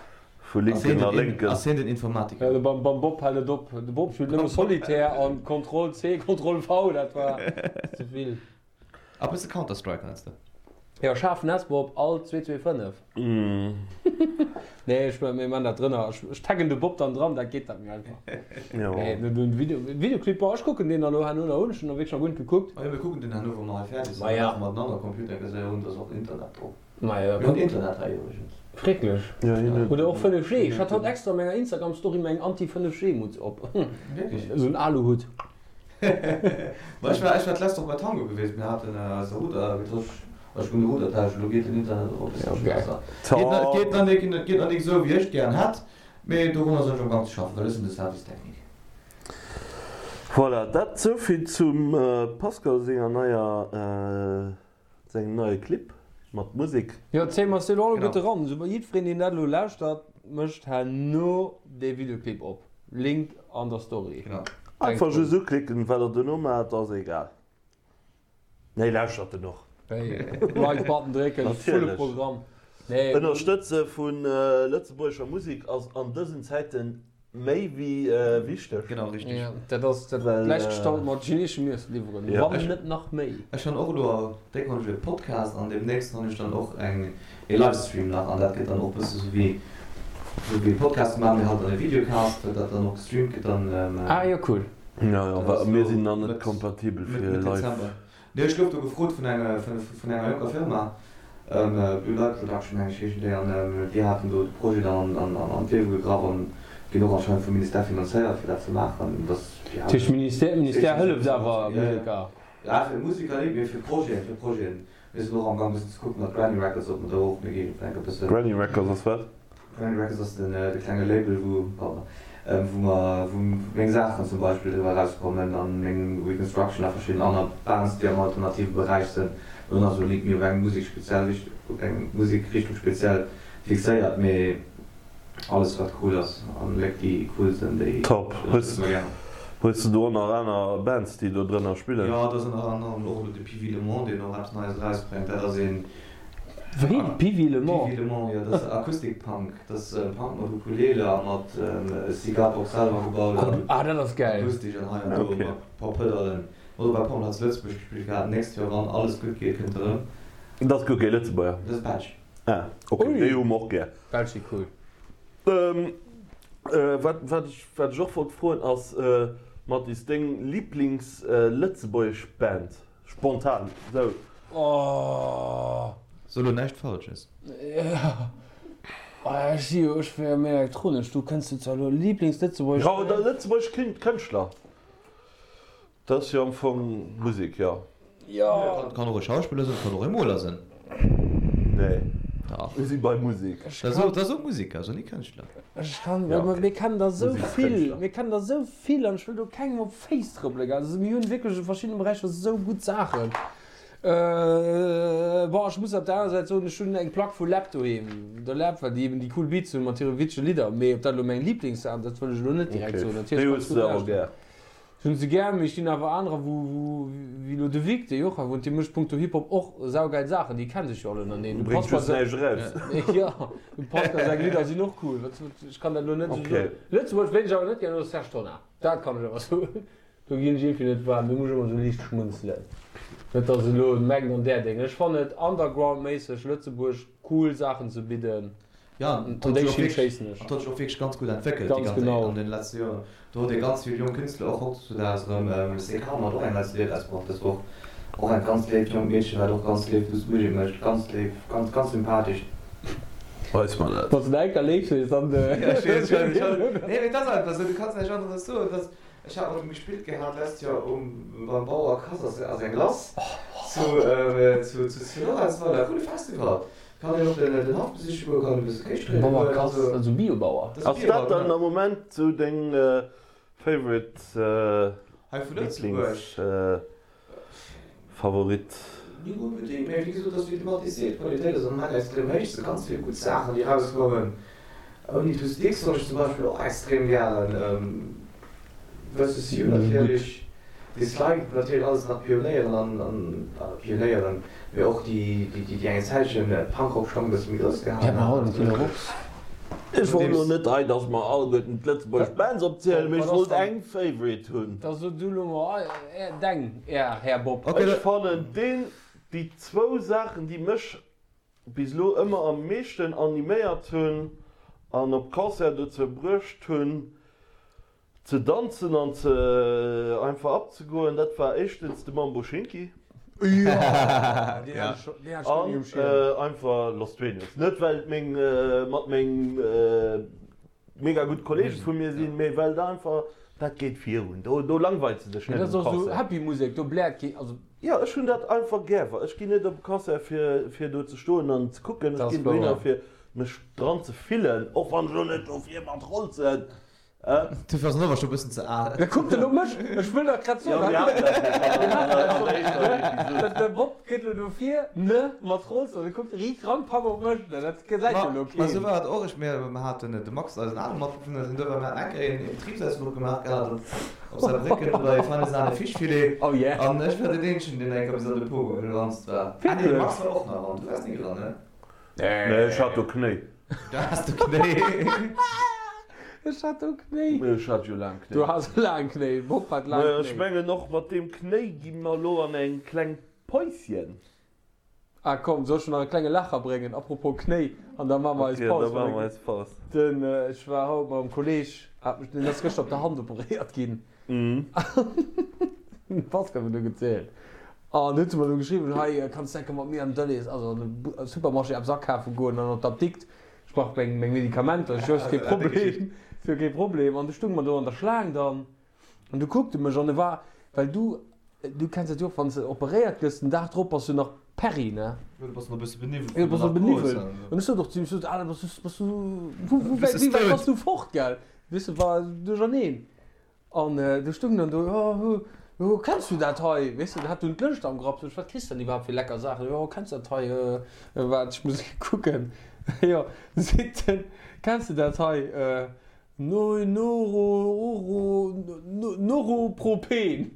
S3: vu Linken a Lénken.
S5: Ass hien den Informatiker?
S4: Ja, de beim Bob hält et op. De Bob spillt nëmme Solitaire an Ctrl C, Ctrl V, dat war ze vill.
S5: A bësse Counter Strike meinst de?
S4: Jo, schaarfen S Bob, alt 225. Nee, ech mir man dat drënner. Ech taggen de Bob dann dran, dat geet dat méi einfach.
S3: Jo.
S4: Nee, den Video, Videoclip, boah, ech kucken deen elo herno nach un, ech hunn nach wierklech nach guer net gekuckt.
S5: Ma jo, mir kucken deen herno, wa mer hei fäerdeg sinn.
S4: Ma ja.
S5: Maache mer den anere Computer, gesäi un, dass och Internet drop.
S4: Ma jo.
S5: Mir hunn Internet hei iwwregens.
S4: Schrecklech.
S3: Ja, hien huet.
S4: Oder och 5G. Ech hat haut extra an menger Instagram-Story meng Anti-5G-Mutz op.
S5: Wierklech?
S4: Esou en Aluhutt.
S5: Ma ech war, ech war d'lescht Woch bei Tango gewiescht, mir haten eise Router getosch, ech hunn de Router tauscht, elo geet den Internet och e bësselche besser. Geet nach, geet nach nik, geet nach nik esou wéi ech gären hätt, mee dorunner sinn ech am Gang ze schaffen, well ech sinn de Service technique.
S3: Voilà, dat souvill zum Pascal senger neier, sengem neie Clip mat Musek.
S4: Jo, zéie mer se elo alleguerte eran. Esou, jiddwereen deen dat elo lauschtert, mécht herno dee Videoclip op. Link an der Story.
S5: Genau.
S3: Einfach just uklicken, wat der dono maacht ass egal. Nee, lauschtert en och.
S4: Like Button drécken, volle Programm. Nee.
S3: Ënnerstëtze vu lëtzebuergescher Musek ass an dësen Zäiten méi wéi wichteg.
S5: Genau, richteg.
S4: Jo, dat ass dat gläichgestallt mat chineeschem Iessen liwweren, wann net nach méi.
S5: Ech han och elo déck han ech e Podcast an demnächst han ech dann och eng e Livestream nach an dat gëtt dann och bësse sou wéi sou wéi Podcast maache mir halt dann e Videocast dat dann och gestreamt gëtt dann.
S4: Ah jo cool.
S3: Jo jo, well mir sinn nach net kompatibel fir
S5: Mëtt
S3: live.
S5: Dezember. Nee ech gouf do gefrot vun enge vun enger jonker Firma. Blue Light Production meng ech heeschen déi an déi haten do de Projet dann an d'Liewe gegraff an ginn och anscheinend vum Ministère finanzéiert fir dat ze maachen.
S4: Dat heescht Ministère, Ministère hëlleft awer Museker?
S5: Ja fir Museker net, mee fir Projeten, fir Projeten. Mir sinn och am Gang bëssen ze kucken mat Granny Records ob mer do och, mir gi enke bëssen.
S3: Granny Records ass wat?
S5: Granny Records ass den de klenge Label wou, pardon, wou mer, wou meng Saachen zum Beispill driwwer erauskommen an meng Reconstruction a verschidden aner Bands déi am alternative Beräich sënn. Mir hunn also nik méi op eng Musek speziell Richt, op eng Musekrichtung speziell fixéiert, mee alles wat cool ass an Léck déi cool sënn déi
S3: Top. Hues ënnerstëtze mer gären. Hues de do och nach aner Bands déi do drënner spillen?
S5: Jo, do ass ënner anerem och elo de Pivi Le Mans deen och eppes Neies erausbréngt. Dat ass een.
S4: Wéi? Pivi Le Mans?
S5: Pivi Le Mans, jo, dat ass Acoustic Punk. Dat ass Punk mat Ukulele a mat Cigarbox selwer gebaut an
S4: Ah, dat ass gäil.
S5: akustesch an hei an do mat e paar Pëdallen. Huet och bei Pommerl zu Lëtzebuerg gespillt gehat. Nächst Joer, wann alles gutt geet, kënnt e rëm.
S3: Dat ass guer kee Lëtzebuerger.
S5: Dat ass Belsch.
S3: Ah, ok, déi hu mer och gär.
S4: Belsch si cool.
S3: Wat, wat ech, wat ech och wollt froen ass, Mathis, deng Lieblings-lëtzebuergesch Band? Spontan, sou.
S4: Oh.
S5: So lo näischt Falsches.
S4: Jo. Oh, ech si jo, ech wier jo méi elektronesch, du kënns du zwar elo Lieblings-lëtzebuergesch
S3: Ja, oder lëtzebuergesch Kënschtler. Dat ass jo am Fong Musek, jo.
S4: Jo.
S5: Kann och e Schauspiller sinn, kann och e Moler sinn.
S3: Nee,
S5: Dach.
S3: mir si bei Musek.
S5: Dat ass och Museker, ass och ni Kënschtler.
S4: Ech kann, well mir kennen der esou vill, mir kennen der esou vill an ech wëll do kengem op d'Féiss trëppelen, gell. Also mir hunn wierklech a verschiddene Beräicher esou gutt Saachen. Bon, ech muss op der anerer Säit soen, ech hunn eng Plack vu Läb doheem, der Läb, well déi eben déi cool Beats hunn mat hire witzege Lidder. Mee ob dat elo meng Lieblingssaach, dat wëll ech elo net direkt soen.
S3: Natierlech Déi hues de awer gär.
S4: Ech hunn se gär, mee ech ginn awer anerer, wou, wou, wéi elo de Vic, dee Joachim wunnt, dee mécht punkto Hip-Hop och saugeil Saachen, déi kennen sech jo all ënnereen. Dem
S3: Bréngt
S4: Pascal
S3: just näischt eraus.
S4: Jo, dem Pascal seng Lidder sinn och cool. Wat, wat, ech kann dat elo net esou soen. Lëtzebuerg, ween ech awer net gär hunn, ass Serge Tonnar. Dat kann ech awer soen. Do ginn ech iergendwéi net waarm, do muss ech ëmmer esou liicht schmunzelen. Net datt elo mengt an där Déng. Ech fannen et undergroundméisseg Lëtzebuerg cool Saachen ze bidden.
S5: Jo, an
S4: An déi Schinn schéissen ech.
S5: Et huet sech och wierklech ganz gutt entwéckelt déi
S4: Ganz genau.
S5: an den letzte Joren. Do huet ee ganz vill jonk Künstler och hautdesdaags erëm. CK mat och eng nei CD erausbruecht dës Woch. Och eng ganz léif jonk Meedchen, wat och ganz léif lues Musek mécht. Ganz léif, ganz, ganz sympathesch.
S3: Weis mer dat.
S4: Wann s de enker léif sees, dann.
S5: Jo, ech weess, ech weess. Nee, mee et ass einfach esou, du kanns näischt aneres soen. Et ass, ech hat mat him gespillt gehat d'lescht Joer um, beim Bauer Kass ass, ass eng lass zu, zu, zu Lorentzweiler, coole Festival. Kann een och den Haff besiche goen, kann e bësse Kéis dréine
S4: goen. Bauer Kass, also Biobauer.
S3: Ass dat dann am Moment sou deng favorite,
S5: Hei vu Lëtzebuerg?
S3: Lieblings, Favorit?
S5: Net onbedéngt, mee wéi gesot, ass wéi de Mathis seet, d'Qualitéit ass am Moment extrem héich, se ganz vill gutt Saachen déi erauskommen. Ouni Two Sticks hunn ech zum Beispill och extrem gären. Versus You natierlech, Dislike natierlech alles nach Pionéieren an, an Pionéieren, mee och déi déi eng Zäitchen Punkrock schonn e bësse méi grouss gehalen
S4: hunn.
S3: Ech wollt elo net hei, dass mer alleguerten d'lëtzebuergesch Bands opzielen, mee ech wollt eng Favorite hunn.
S4: Da so du elo mol deng, Här Bob.
S3: Ech fannen deen, déi zwou Saachen déi mech bis elo ëmmer am meeschten animéiert hunn an op Concert dozou bruecht hunn ze danzen an ze einfach abzegoen, dat war éischtens de Mambo Schinki an einfach Los Dueños. Net well et meng mat meng mega gutt Kollege vu mir sinn, mee well da einfach dat geet virun, do do langweilt se dech net
S4: Dat ass
S3: um
S4: och esou
S3: Concert.
S4: happy Musek, do bläert kee, also.
S3: Jo, ech hunn dat einfach gär. Ech ginn net op e Concert fir fir do ze stoen an ze kucken,
S4: Dat
S3: ech
S4: ass
S3: ginn dohinner
S4: wouer.
S3: fir mech dran ze fillen, och wann ech elo net dofir mat rolzen.
S5: Dofir ass en awer scho bëssen ze al.
S4: Da kuckt en op mech, ech wëll dat grad soen.
S3: Jo, mir haten dat jo schonn an der éischter Episode.
S4: De Bob geet elo dofir, ne, mat Rolls, an e kuckt riit ran, papp op mech, na dat gesäit jo elo
S5: Ma esou
S4: keen.
S5: war et och. Ech, mir haten de Max, eisen ale Matbewunner, deen do war, mir haten eng Kéier een Betribsausfluch gemaach gehat op op Saarbrécken bei Feine Sahne Fischfilet.
S4: Oh yeah.
S5: An ech war deen eenzegen, deen eng Kéier bis an de Pogo geranzt war. Ah nee, de Max war och nach an, du waars ni dran, ne?
S3: Nee, ech hat do Knéi.
S5: Du has do Knéi.
S4: Ech hat do Knéi.
S3: Ech hat jo laang Knéi.
S4: Du has laang Knéi. Bob hat laang Knéi.
S3: Ech mengen och mat deem Knéi gi mer elo an eng kleng Päuschen.
S4: Ah komm, soll ech nach e klenge Lacher bréngen? Apropos Knéi, an da maache mer eis Paus.
S3: Ok, da maache mer eis Paus.
S4: Den, ech war haut mam Kolleg, hat mech, deen ass gëschter op der Hand operéiert ginn. Den Pascal huet mir gezielt. An huet se mer du geschriwwen, hei kanns de enke mat mir an Delhaize, also an de Supermarché eppes akafe goen an an d'Apdikt, ech brauch meng meng Medikamenter. Ech jo, ass kee Problem, ass jo kee Problem. An du stung mer do an der Schlaang dann an du kuckt e mech an e war, well du, du kenns dat jo och, wann s de operéiert gëss, den Dag drop bass du nach Perry, ne?
S5: Jo, du bass nach e bësse beniwwelt
S4: Jo, du bass nach beniwwelt. An ech sot och zu him, ech sot, Alan, bass du, bass du, wou, wou wäit, wéi wäit bass du fort, gell? Weess de, war duercherneen. An du stung dann do, jo, jo, kenns du dat hei? Weess de, hat dunn d'Lëscht am Grapp, sot ech, wat kriss de dann iwwerhaapt fir lecker Saachen? Jo, kenns du dat hei? Waart, ech muss kucken. Jo, seet en, kenns du dat hei? No, Noro, Oro, Noropropen.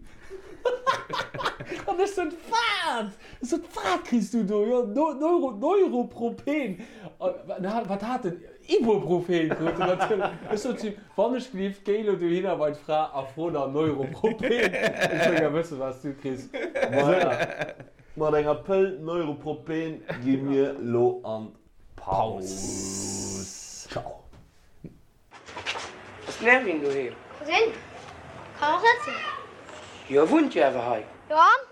S4: An ech sot, wat? Ech sot, wat kriss du do? Jo, Neuro, Neuropropen. An wat hat en? Ibuprofen krut en natierlech. Ech sot zu him, Wann ech gelift, géi elo dohinner bei d'Fra a fro nach Neuropropen. Ech wëll gär wëssen, wat s du kriss. Voilà.
S3: Mat enger Pëll Neuropropen gi mir lo an d'Paus.
S4: Ciao.
S6: Ass den Erwin doheem?
S7: Cousine, kann och net sinn.
S6: Jo, e wunnt jo awer hei.
S7: Jo an?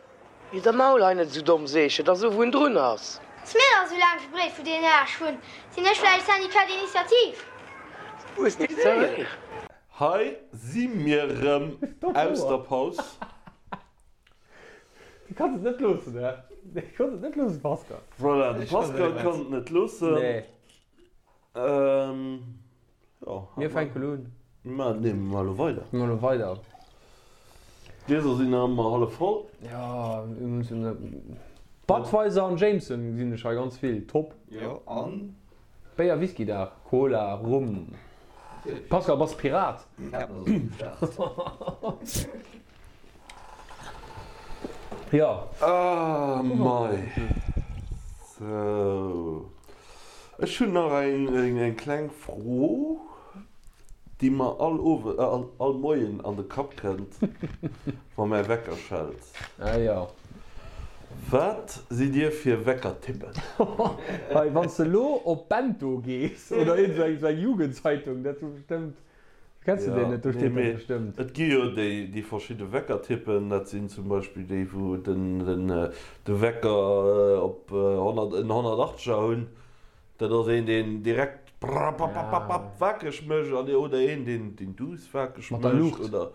S6: Wier der Maul hei net esou domm, seech et, a so wou en drun ass.
S7: Ass mir dach esou laang verbreet vu deenen Aarsch hunn. Sinn ech vläicht Syndicat d'initiative?
S6: Hues de gesinn?
S3: Hei si mir rëm aus der Paus.
S4: Du kanns et net loossen, hä? Du kanns et net loossen, Pascal.
S3: Voilà, de Pascal kann et net loossen.
S4: Nee.
S3: Ähm, jo.
S4: Mir fänken elo un.
S3: Ma nee, mir maache elo weider.
S4: Mir maache elo weider.
S3: D'Glieser sinn nach ëmmer hallef voll.
S4: Jo, mir mussen. Budweiser an Jameson gesinn ech hei ganz vill. Top.
S5: Jo, an?
S4: Béier, Whisky Dag, Cola, Rum. Pascal, bass Pirat? Jo.
S3: Ah mei. Sou. Ech hunn nach eng kleng Fro, déi mer all Owend, all Moien an de Kapp kënnt, wa mäi Wecker schellt.
S4: Ah jo.
S3: Wat sidd Dir fir Weckertyppen?
S4: Hei, wann s de elo op Bento gees oder iergend esou eng Jugendzeitung, dat hu bestëmmt Kenns de deen net? Do steet dat bestëmmt.
S3: Et gi jo déi verschidde Weckertypen. Dat sinn zum Beispill déi, wou de Wecker op en 180er hunn. Dat ass een, deen direkt prapapapapap wakereg mécht an oder een, deen duuss wakereg mécht.
S4: Mat der Luucht.
S3: Oder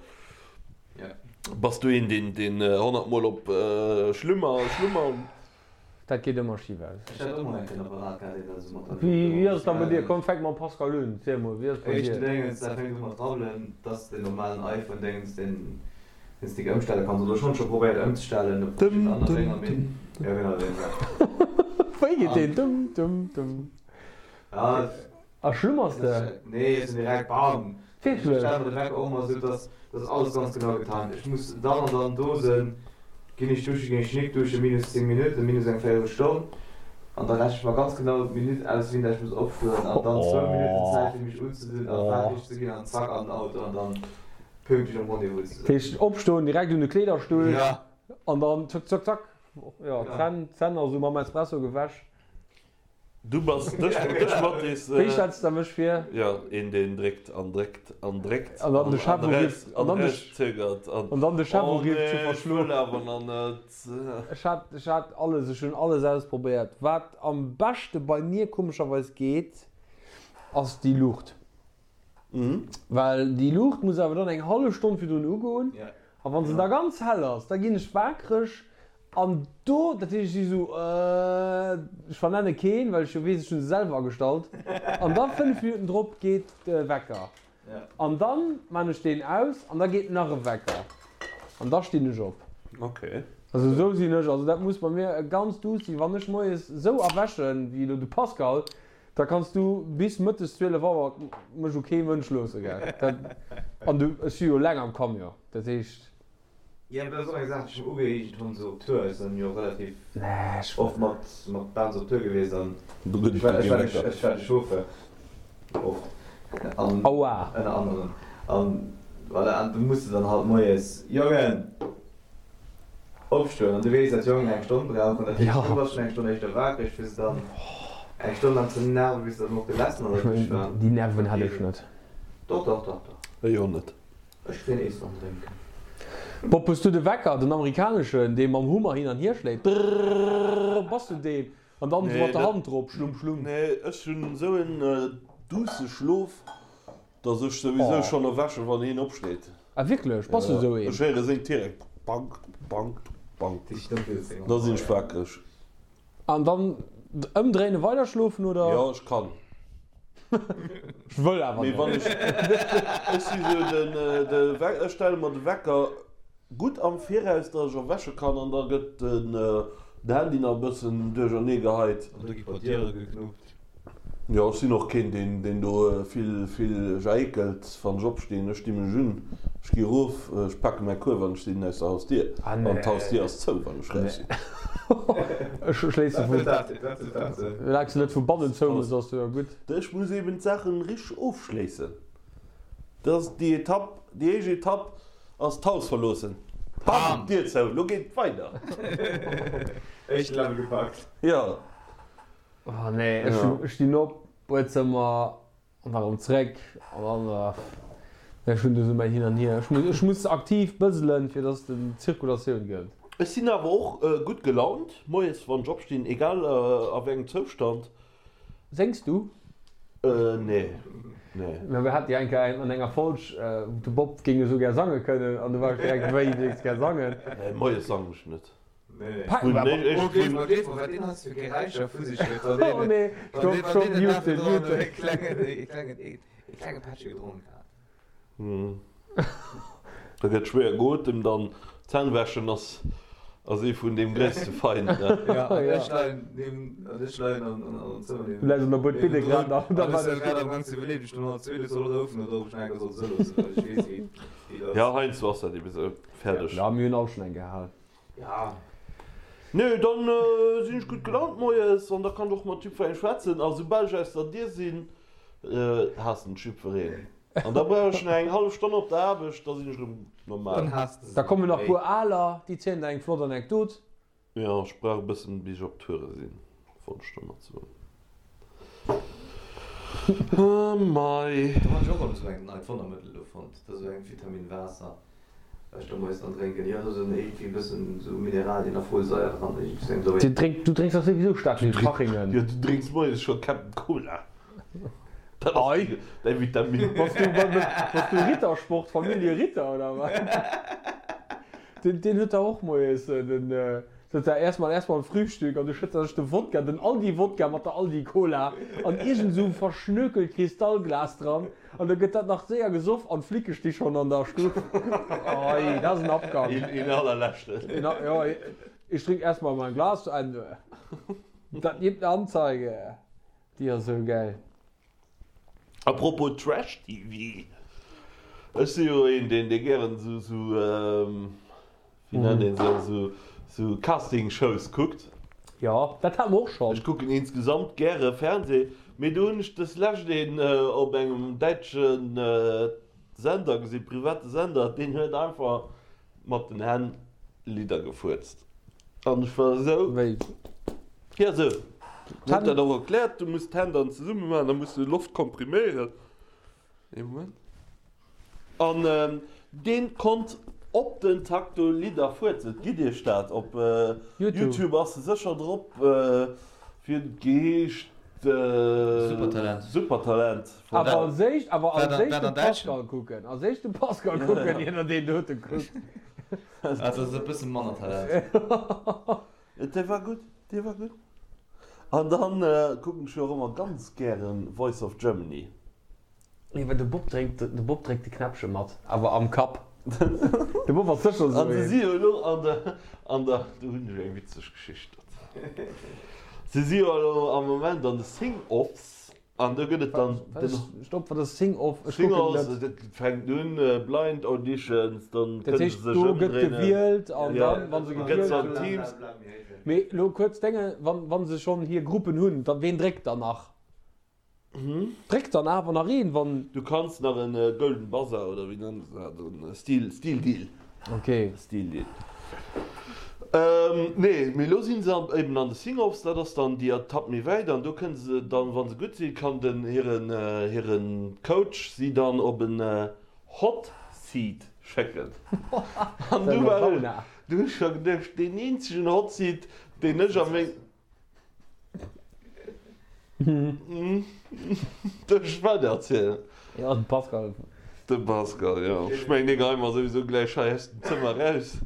S3: bass du een, deen 100 Mol op Schlummer, Schlummer.
S4: Dat geet ëmmer schif aus.
S5: Ech hat och mol eng Kéier en Apparat gehat, deen dat esou mat der Luucht
S4: Wéi ass et da bei dir? Komm, fänk mam Pascal un. Ziel mol, wéi ass et bei dir?
S5: Éischten Déngens, dat fänkt u mat rabbelen, dass den normalen iPhone Déngens, deen deen s de ëmstelle kanns, oder ech hunn et scho probéiert ëmzestellen op verschidden aner Dénger, mee jo genau deen da.
S4: Wéi geet deen? Dum dum dum.
S5: Ja.
S4: A schlummers de?
S5: Nee, ech sinn direkt bam!
S4: Wierklech?
S5: Ech stelle mer de Wecker och ëmmer esou, dass dass alles ganz genau getan gëtt. Ech muss dann an dann do sinn, ginn ech duschen, ginn ech nik duschen, minus 10 Minutten, minus eng Véierelstonn, an da rechne ech mer ganz genau d'Minutt aus, wéini dat ech muss opstoen, an dann zwou Minutten Zäit fir mech unzedinn a faerdeg ze ginn an zack an den Auto an dann pünktlech am Rendez-vous ze
S4: Dat
S5: sinn.
S4: heescht opstoen, direkt un de Kleederstull
S5: Ja.
S4: an dann zack zack zack, jo, d'Zänn d'Zänn also mam Espresso gewäsch.
S3: Du bass dech, dech Mathis.
S4: Wéi stells de mech vir?
S3: Jo, een deen dréckt an dréckt an dréckt
S4: An dann de Chef urifft.
S3: an erauszögert an
S4: An dann de Chef urifft zu
S3: Oh nee, ech
S4: verschloen.
S3: wëll awer nach net.
S4: Ech hat, ech hat alles, ech hunn alles ausprobéiert. Wat am beschte bei mir komescherweis geet, ass déi Luucht. Well déi Luucht muss awer dann eng hallef Stonn virdrun ugoen. A wann se da ganz hell ass, da ginn ech waakreg An do, dat heescht, ech si sou, äh, ech vernenne keen, well ech jo weess, ech hu se selwer agestallt. An da 5 Minutten drop geet de Wecker. An dann maan ech deen aus an da geet nach e Wecker. An da stinn ech op.
S3: Ok.
S4: Also sou sinn ech. Also dat muss bei mir ganz duuss sinn. Wann ech moies sou erwächen, wéi elo de Pascal, da kanns du bis mëttes 12 Auer mech u kee Mënsch loosse, gell. Dat, an du, ech si jo eleng am Camion, dat heescht.
S5: Jo, dat ass och eng Saach, déi ech mer ugeeegent hunn, esou op Tour. Ech sinn jo relativ oft mat mat Bands op Tour gewiescht an ech war ech war de ech war de Chauffeur oft an ënner anderem an voilà an du muss de dann halt moies, Jongen, opstoen an du weess, dat d'Jongen eng Stonn brauchen, dat heescht du bass schonn eng Stonn éischter wakereg fir se dann eng Stonn laang ze nerven, bis se dann och gelessen an der Dusch waren.
S4: Déi Nerven hätt ech net.
S5: Doch, doch, doch, doch.
S3: Ech och net.
S5: Ech kréien ees an drénken.
S4: Bob, hues du de Wecker, den amerikaneschen, dee mam Hummer hin an hier schléit? Drrrrrrr, bass du deen? An dann esou mat der Hand drop, schlumm, schlumm.
S3: Nee, ech hunn esou en duusse Schlof, dass ech souwisou schonn erwächen, wann hien opsteet.
S4: Ah wierklech? Bass du esou een?
S3: Ech héiere seng direkt, Bank, bank, bank, da sinn ech wakereg.
S4: An dann ëmdréinen, weider schlofen, oder?
S3: Jo, ech kann.
S4: Ech wëll awer
S3: Mee wann
S4: net.
S3: ech, ech si sou den, de, ech stelle mer de Wecker gutt am Viraus, datt ech erwäche kann an da gëtt den Handy nach e bëssen duerchernee geheit.
S5: An da gi puer Diere geknuppt.
S3: Jo, ech sinn och keen, deen, deen do vill, vill jaékelt, wann ech opstinn. Ech di mech un, ech gi erof, ech pake mäi Kuerf an ech sinn aus der Hausdier. An d'Hausdier ass zou, wann ech raus sinn.
S4: Ech schléisse vu. Soulaang s de net vu bannen zou mëss, ass jo gutt.
S3: Ech muss eben d'Saachen richteg ofschléissen. Dat ass déi Etapp, déi éischt Etapp ass d'Haus verloossen. Bam! D'Dier zou, lo geet et weider.
S5: Éischt Level gepackt.
S3: Jo.
S4: Oh nee, ech stinn op, Buedzëmmer an da rëm zréck an dann, ech hunn do sou mäin Hin an Hier. Ech muss aktiv bëselen, fir dass et en Zirkulatioun gëtt.
S3: Ech sinn awer och gutt gelaunt moies wann ech opstinn, egal a wéi engem Zoustand.
S4: Séngs du?
S3: Nee, nee.
S4: Mä mir hate jo eng Kéier an enger Folg, de Bob géing esou gär sange kënnen an du war ech direkt, wéi, du géings gär sangen?
S3: Nee, moies sangen ech net. Da gëtt schwéier geotemt an d'Zänn wäschen ass ass ee vun deem gréisste Feind. Jo heiansdo ass dat ebe sou. Fäerdeg.
S4: Jo mir hunn all schonn eng gehal.
S5: Ja.
S3: Nee, dann sinn ech gutt gelaunt moies an da kann ech och mat jiddwerengem schwätzen. A soubal ech aus der Dier sinn, haassen ech jiddwereen. An da brauch ech nach eng hallef Stonn op der Aarbecht, da sinn ech erëm normal.
S4: Da kommen nach puer Aler, déi zielen der eng flott Anekdot.
S3: Jo, ech brauch e bëssen bis ech op Toure sinn, wollt ech domat soen. Mei.
S5: Do han ech och erëm esou eng neit Wonnermëttel do fonnt, dat ass esou eng Vitamin Waasser wat ech do moies dann drénken. Jo, do sinn iergendwéi e bëssen esou Mineralien a Folsaier dran, iergendwéi sou eng
S4: Du drénks, du drénks dach souwisou staark vill Fachingen.
S3: Jo, du drénks moies scho Captain Cola. Dat ass däi Vitamin.
S4: Bass du, bass du Rittersport, Familie Ritter oder wat? Deen, deen huet dach och moies den, sot der erstmal, erstmal Frühstück an du schëtts der sech de Wodka, den Aldi Wodka mat der Aldi Cola an iergend esou verschnökelt Kristallglas dran an da gëtt dat nach séier gesoff an d'Flicke sti schonn an der Stuff. Ei, dat ass en Abgang.
S3: Een, een allerleschten.
S4: Een, jo, ich trink erstmal mein Glas zu Ende. Dat gibt ne Anzeige. Déi ass esou gäil.
S3: A propos Trash TV, ech si jo een deen dee gären esou esou wéi nennt een se esou esou Casting Shows kuckt.
S4: Jo, dat hate mer och schonn.
S3: Ech kucken insgesamt gäre Fernseh, mee do hunn ech des lescht een op engem däitsche Sender gesinn, private Sender, deen huet einfach Mat den Hänn Lidder gefuerzt an ech war esou.
S4: Wéi?
S3: Jo esou. En huet dat och erkläert, du muss d'Hänn dann zesumme maachen, da muss du Loft kompriméieren. Ee Moment. An deen konnt op den Takt do Lidder fuerzen. Gitt iech dat, op YouTube ass se sécher drop. Wéi huet et geheescht?
S5: Supertalent.
S3: Supertalent.
S4: Awer als éischt, awer als éischt de Pascal kucken. Als éischt de Pascal kucken, ier der deen dote kuckt.
S5: Dat ass e bësse manner Talent.
S3: Dee war gutt, dee war gutt. An dann kucken ech jo och ëmmer ganz gären Voice of Germany.
S4: Nee, well de Bob drénkt, de Bob dréckt de Knäppche mat, awer am Kapp. De Bob ass sécher esou
S3: An se
S4: een.
S3: si jo elo an der, an der, do hunn ech eng witzeg Geschicht dozou. Se si jo elo am Moment an de Sing-Offs an do gëtt et dann den.
S4: Stopp, wat ass Sing-Off? Ech kucken
S3: Sing-Offs,
S4: net.
S3: dat fänkt un, Blind Auditions, dann
S4: Dat
S3: kënne se
S4: heescht,
S3: sech
S4: do gëtt
S3: ëmdréinen.
S4: gewielt an
S3: Ja,
S4: dann, wa se
S3: gëtt
S4: gewielt
S3: se an
S4: hunn.
S3: Teams.
S4: Mee elo kuerz Dénge, wann, wa se schonn hir Gruppen hunn, da ween dréckt dann nach? Dréckt dann awer nach een, wann.
S3: Du kanns nach en Golden Buzzer oder wéi nennen se dat, en Steel, Steel Deal.
S4: Ok.
S3: Steel Deal. Nee, mee elo sinn se eben an de Sing-Offs, dat ass dann déi Etapp méi wäit an do kënne se dann, wa se gutt sinn, kann den hiren, hiren Coach si dann op en Hot Seat. Schécken. An du war ech, du hu ech scho geduecht, deen eenzegen Hotseat, deen ech a meng. Duerf ech weider erzielen?
S4: Jo, den Pascal.
S3: De Pascal, jo. Ech mengen, dee geheien mer souwisou gläich hei aus dem Zëmmer eraus.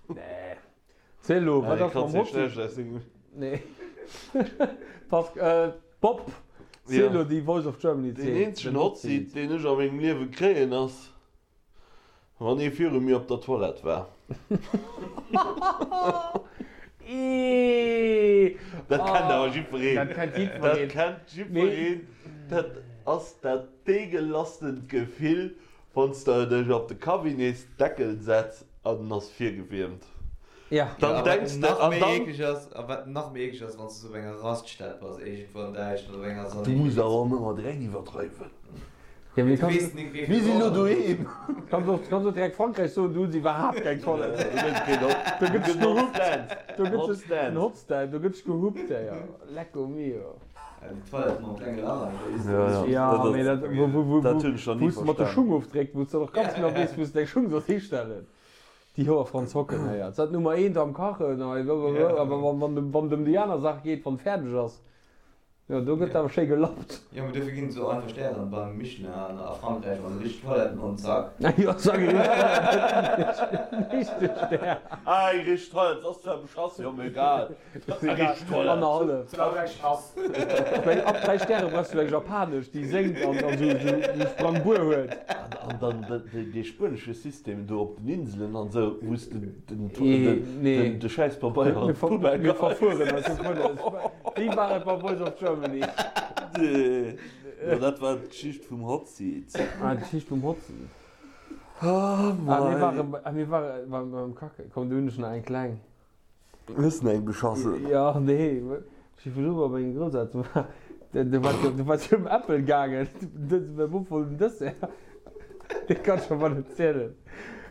S4: Nee. Ziel elo, wat ass mam Hotseat? Nee. Pascal, Bob, ziel elo déi Voice of Germany
S3: Zeen. Deen eenzegen Hotseat, deen ech a mengem Liewe kréien, ass. Wann ee viru mir op der Toilette war. Dat kennt awer jiddwereen.
S4: Dat kennt jiddwereen.
S3: Dat kennt jiddwereen. Dat ass dat deegelasstent Gefill, wann s de dech op de Cabinetsdeckel setz an en ass virgewiermt.
S4: Ja.
S3: Dann denks de,
S5: an
S3: dann.
S5: A wat nach méi eekleg ass, wann s de sou op enger Raststätt bass, iergendwou an Däitschland op enger
S3: Du muss awer och net mat direkt iwwerdreiwen.
S4: Ja, mee
S5: Du weess nik wéi
S3: Mir sinn elo doheem.
S4: Kanns och, kanns och direkt Frankräich soen, do hu se iwwerhaapt keng Toilette.
S3: Do gëtt keen Hot,
S4: Do gëtt
S3: gëtt
S4: gehupt.
S3: Hotstand.
S4: Do gëtt
S3: Hotstand.
S4: en Hotstand, do gëtt gehupt, ja. Lecco mio.
S5: Ja, déi Toilette mam klenge Lach an der
S3: Ja, ja.
S4: Ja,
S3: Dat
S4: mee
S3: ass,
S4: dat, wou, wou, wou,
S3: dat hunn ech nach ni
S4: wou s de mat de
S3: verstan.
S4: Schung ofdréckt, wou s de och ganz genau weess, wou s de deng Schung solls histellen. Déi Hoer Franz Hocken héiert. Sat Nummer eent am Kachen, hei, blablabla, awer wann, wann, wann et ëm déi aner Saach geet, wann fäerdeg ass, jo, do gëtt awer schéi gelappt.
S5: Jo, mee dofir ginn et esou einfach Stären beim Michelin an a Frankräich an richteg Toiletten an zack.
S4: Jo, zack, e richteg Stär.
S3: Ah, eng richteg Toilette ass zwar beschass, jo, mee egal.
S4: Annerhallef. Well ab 3 Stäre brauchs du eng japanesch, déi séngt an esou esou Sprangbuer huet.
S3: An dann dee spuenesche System do op den Inselen an esou, wou s de de Schäisspabeier an d'Poubelle geheis.
S4: Mir verfueren eis dovunner. Wéi war et bei Voice of Germany?
S3: Jo, dat war d'Geschicht vum Hot Seat.
S4: Ah, d'Geschicht vum Hot Seat.
S3: Ah,
S4: mei. Ah, mir ware beim Kacke. Komm, do hunn ech nach eng kleng.
S3: Hues den eng beschassen?
S4: Jo, nee, ech si virdru bei menge Grousselteren war, do war do war et ëm Äppel gaangen, mäi Bop wollt en Dessert, dee kann ech awer net zielen,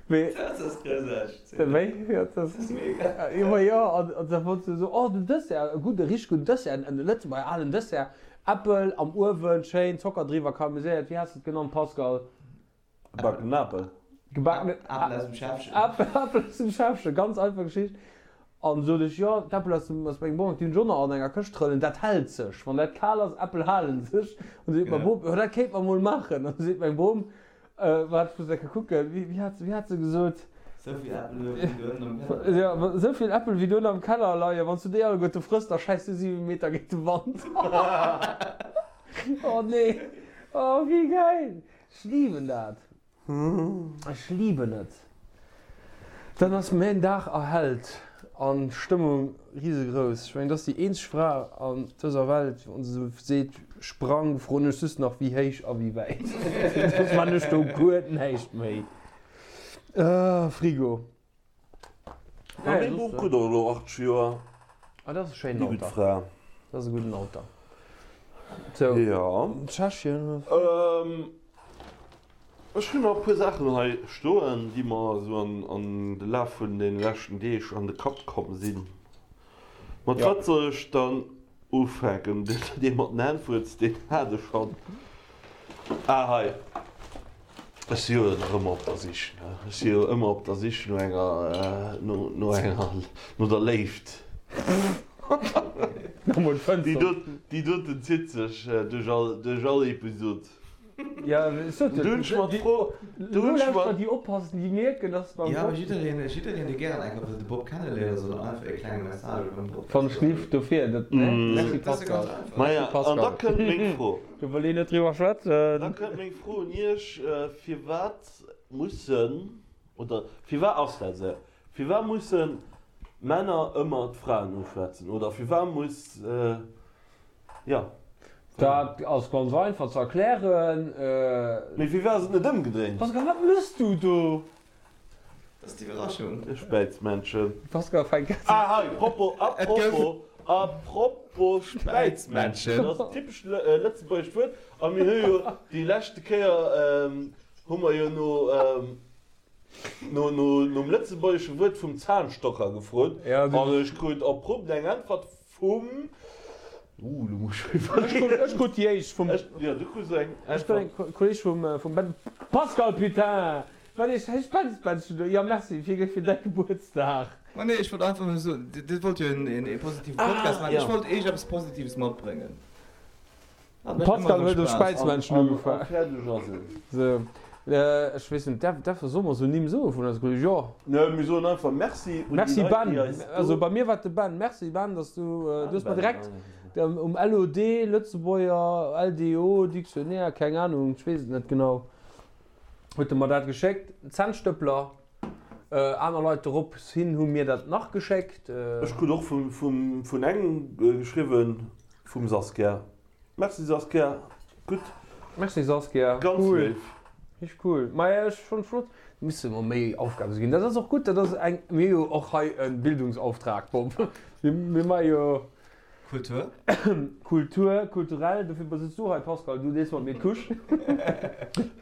S4: mee.
S5: Dat ass groussarteg zielen.
S4: Wéi? Jo, dat ass
S5: mega.
S4: Jo, ma jo, an an da wollt se esou, oh den Dessert, e gudde, richteg gudden Dessert, en Lëtzebuerger alen Dessert, Äppel am Uewen, schéin Zocker driwwer karamelliséiert, wéi has de et genannt, Pascal?
S3: Gebackenen Apel.
S4: Gebackenen
S5: Apel aus dem Schäffchen.
S4: Apel aus dem Schäffchen, ganz einfach Geschicht. An sot ech, jo, d'Äppel aus dem, aus mengem Bong, déi hunn ech och nach an enger Këscht trëllen, dat hält sech, wann dat kal ass, Äppel halen sech. An seet mäi Bop, jo, dat kéint mer mol maachen. An seet meng Bom, waart, ech muss eng Kéier kucken, wéi, wéi hat, wéi hat se gesot?
S5: Sou vill Äppel wéi do ënnen am Keller.
S4: Jo, sou vill Äppel wéi do ënnen am Keller leien, wann s du déi alleguerte frëss, da schäiss du 7 Meter géint de Wand. Oh nee, oh wéi gäil! Ech liben dat. Ech liben et. Dann ass mäin Dag erhellt an d'Stëmmung risegrouss. Ech mengen, et ass déi eenzeg Fra an dëser Welt, wann se esou seet, sprang, froen ech just nach wéi héich a wéi wäit. Soss man ech do guer näischt méi. Frigo.
S3: Ma meng Bom krut och elo 80 Joer.
S4: Ah, dat ass e schéinen
S3: Déi gutt
S4: Alter.
S3: Fra.
S4: Dat ass e gudden Alter. Sou,
S3: Jo.
S4: Tschechien.
S3: Ech hunn nach e puer Saachen hei stoen, déi mer esou an de Laf vun de leschten Deeg an de Kapp komm sinn. Mat wat soll ech dann ufänken? Dee mat den Hänn-Fuerz, deen hat ech schonn. Ah, hei. Ech si jo nach ëmmer op der Sich, ne? Ech si jo ëmmer op der Sich no enger, no, no enger, no der Léift.
S4: Nach mol
S3: Déi
S4: d'Fënster.
S3: dot, déi doten zitt sech duerch all, duerch all Episod.
S4: Ja, ech sot jo,
S3: Du hunn ech mer
S4: déi,
S3: d'Fro, du
S4: elo
S3: hunn ech
S4: lauschterer
S3: mer.
S4: déi oppassen, déi mierken, dass beim
S5: Jo,
S4: Bob.
S5: jiddereen, jiddereen, dee gären eng Kéier wëll de Bob kenneléieren, soll einfach e klenge Message beim Bob
S4: Wann ech lift, dofir, dat, ne? Merci
S5: Dat ass jo
S4: Pascal.
S5: ganz einfach.
S3: Maja,
S4: Merci
S3: an da
S4: Pascal.
S3: kënnt meng Fro.
S4: Do wëll een net driwwer
S3: Da
S4: schwätzen.
S3: kënnt meng Fro un Iech, Firwat mussen, oder firwat ass dat esou, firwat musse Männer ëmmer d'Fraen uschwätzen? Oder firwat muss, jo.
S4: Dat ass ganz einfach ze erklären.
S3: Mee firwat ass et net ëmgedréint?
S4: Pascal, wat mëss du do?
S5: Dat ass d'Iwwerraschung.
S3: De Späizmännchen.
S4: Pascal fänkt grad.
S3: Ah hei, propos, apropos, apropos Späizmännchen, dat ass en typescht lëtzebuergescht Wuert a mir hu jo déi leschte Kéier hu mer jo no, no, no, nom lëtzebuergesche Wuert vum Zahnstocher gefrot an ech krut abrupt eng Äntwert vum, uh, lo muss ech iwwerleeën.
S4: Ech krut déi éischt vum.
S3: Jo, du krus eng
S4: Ech krut eng Kolleg vum, vum Ben. Pascal, putain! Wat ee schäiss Spenzbännchen do. Jo merci fir fir däi Gebuertsdag.
S5: Ma nee, ech wollt einfach nëmme soen, Dir wollt jo een positive Podcast maachen. Ech wollt Iech eppes Positives matbréngen.
S4: Pascal huet um Späizmännchen ugefaangen.
S3: A fäerdeg ass et.
S4: Sou, ech weess net, däerf däerf solle mer esou Nimm soe vun eise Kolleegen? Jo.
S3: Nee, mir soen einfach Merci un déi
S4: Merci
S3: Leit,
S4: Ben.
S3: déi eis do.
S4: Also bei mir war et de Ben. Merci Ben, dass du, du hues mer direkt um LOD, Lëtzebuerger, LDO, Dictionnaire, keng Ahnung, ech weess et net genau, huet e mer dat geschéckt. Zännstëppler, aner Leit dorops hin hu mir dat nach geschéckt.
S3: Ech krut och vum vun engem geschriwwen, vum Saskia. Merci Saskia, gutt.
S4: Merci Saskia,
S3: Ganz
S4: cool.
S3: léif.
S4: Richteg cool. Maja ech fann flott, misse mer méi Aufgaben ginn. Dat ass och gutt, dat ass eng, mir hu jo och hei e Bildungsauftrag, Bob. Mir maache jo.
S5: Kultur.
S4: Kultur, kulturell, dofir sëtz du hei Pascal, du dees mat mir d'Couche.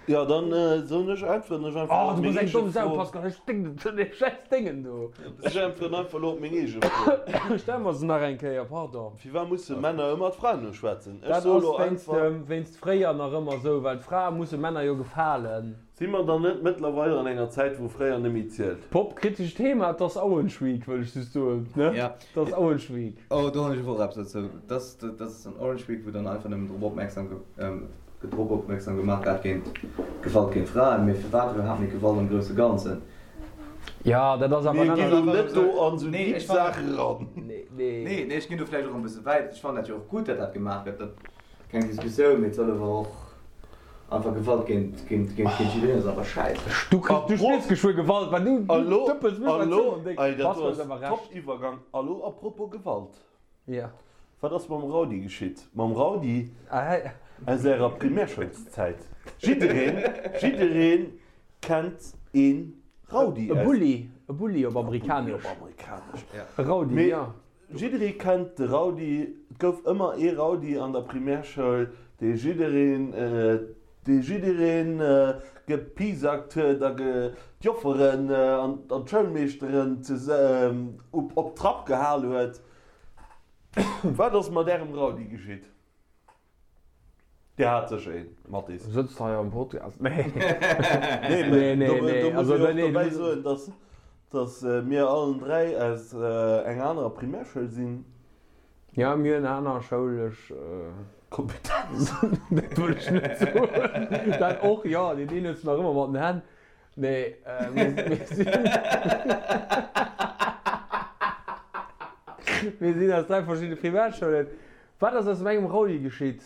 S3: Jo, dann soen ech, äntweren ech einfach
S4: Oh,
S3: op
S4: du
S3: meng
S4: bass eng
S3: eege
S4: domm Sau,
S3: Fro.
S4: Pascal, ech sténken zu deem schäiss Déngen do.
S3: Ech äntweren einfach elo op meng eege Fro.
S4: Stell mer se nach eng Kéier, pardon.
S3: Firwat musse Männer ëmmer d'Fraen uschwätzen? Ech
S4: Dat
S3: soe
S4: ass
S3: lo
S4: wéinst
S3: einfach.
S4: dem, wéinst fréier nach ëmmer esou, well d'Frae musse Männer jo gefalen.
S3: Si mer dann net mëttlerweil an enger Zäit, wou fréier net méi zielt?
S4: Pop, kritescht Thema, et ass Orange Week, wëll ech just soen, ne?
S5: Ja.
S4: Et ass Orange Week.
S5: Oh, do hunn ech och eppes dozou. Dat dat ass an Orange Week, wou dann einfach nëmmen drop opmierksam drop opmierksam gemaach gett géint Gewalt géint Fraen. Mee firwat iwwerhaapt méi Gewalt am grousse Ganzen?
S4: Ja, dat ass awer
S3: Mir
S4: en
S3: ginn
S4: anert.
S3: elo net do an esou
S5: Nee,
S3: deep
S5: ech fannen
S3: Saache ran.
S4: Nee, nee.
S5: Nee, nee, ech ginn do vläicht och e bësse wäit. Ech fannen dat jo och gutt, datt dat gemaach gëtt. Dat keng Diskussioun, mee et soll awer och. Einfach Gewalt géint géint géint géint jiddereen ass einfach schäiss.
S4: Du kriss, du spiers geschwë Gewalt, well du
S3: Elo,
S4: dëppels mech
S3: elo,
S4: an déck.
S3: ey, dat
S4: Pascal
S3: do
S4: huet
S3: ass
S4: awer Recht.
S3: top Iwwergang. Elo a propos Gewalt,
S4: Ja.
S3: wat ass mam Raudi geschitt? Mam Raudi
S4: Ah,
S3: aus ärer Primärschoulszäit? Jiddereen, jiddereen kennt een Raudi
S4: E
S3: aus.
S4: Bulli, e Bulli op
S3: E Bulli
S4: Amerikanesch.
S3: op Amerikanesch.
S4: E Raudi,
S3: Mee
S4: ja.
S3: Jidderee kennt de Raudi, et gouf ëmmer ee Raudi an der Primärschoul, dee jiddereen, dee jiddereen gepiesackt huet a d'Jofferen an d'Schoulmeeschteren op Trapp gehal huet. Wat ass mat ärem Raudi geschitt? Dir hat sécher een, Mathis.
S4: Sëtzt hei am Podcast. Nee.
S3: Nee,
S4: Nee,
S3: mee
S4: nee,
S3: do,
S4: nee.
S3: do muss
S4: Also,
S3: ee och
S4: nee, du
S3: dobäi
S4: muss.
S3: soen, dass, dass mir allen 3 aus enger anerer Primärschoul sinn.
S4: Ja, mir hunn aner schoulesch.
S3: Kompetenz.
S4: Dat wëll ech net soen. Dat och, jo. Deen een huet se nach ëmmer mat den Hänn. Nee, mir, mir sinn. Mir sinn aus 3 verschiddene Primäerschoulen. Wat ass aus mengem Raudi geschitt?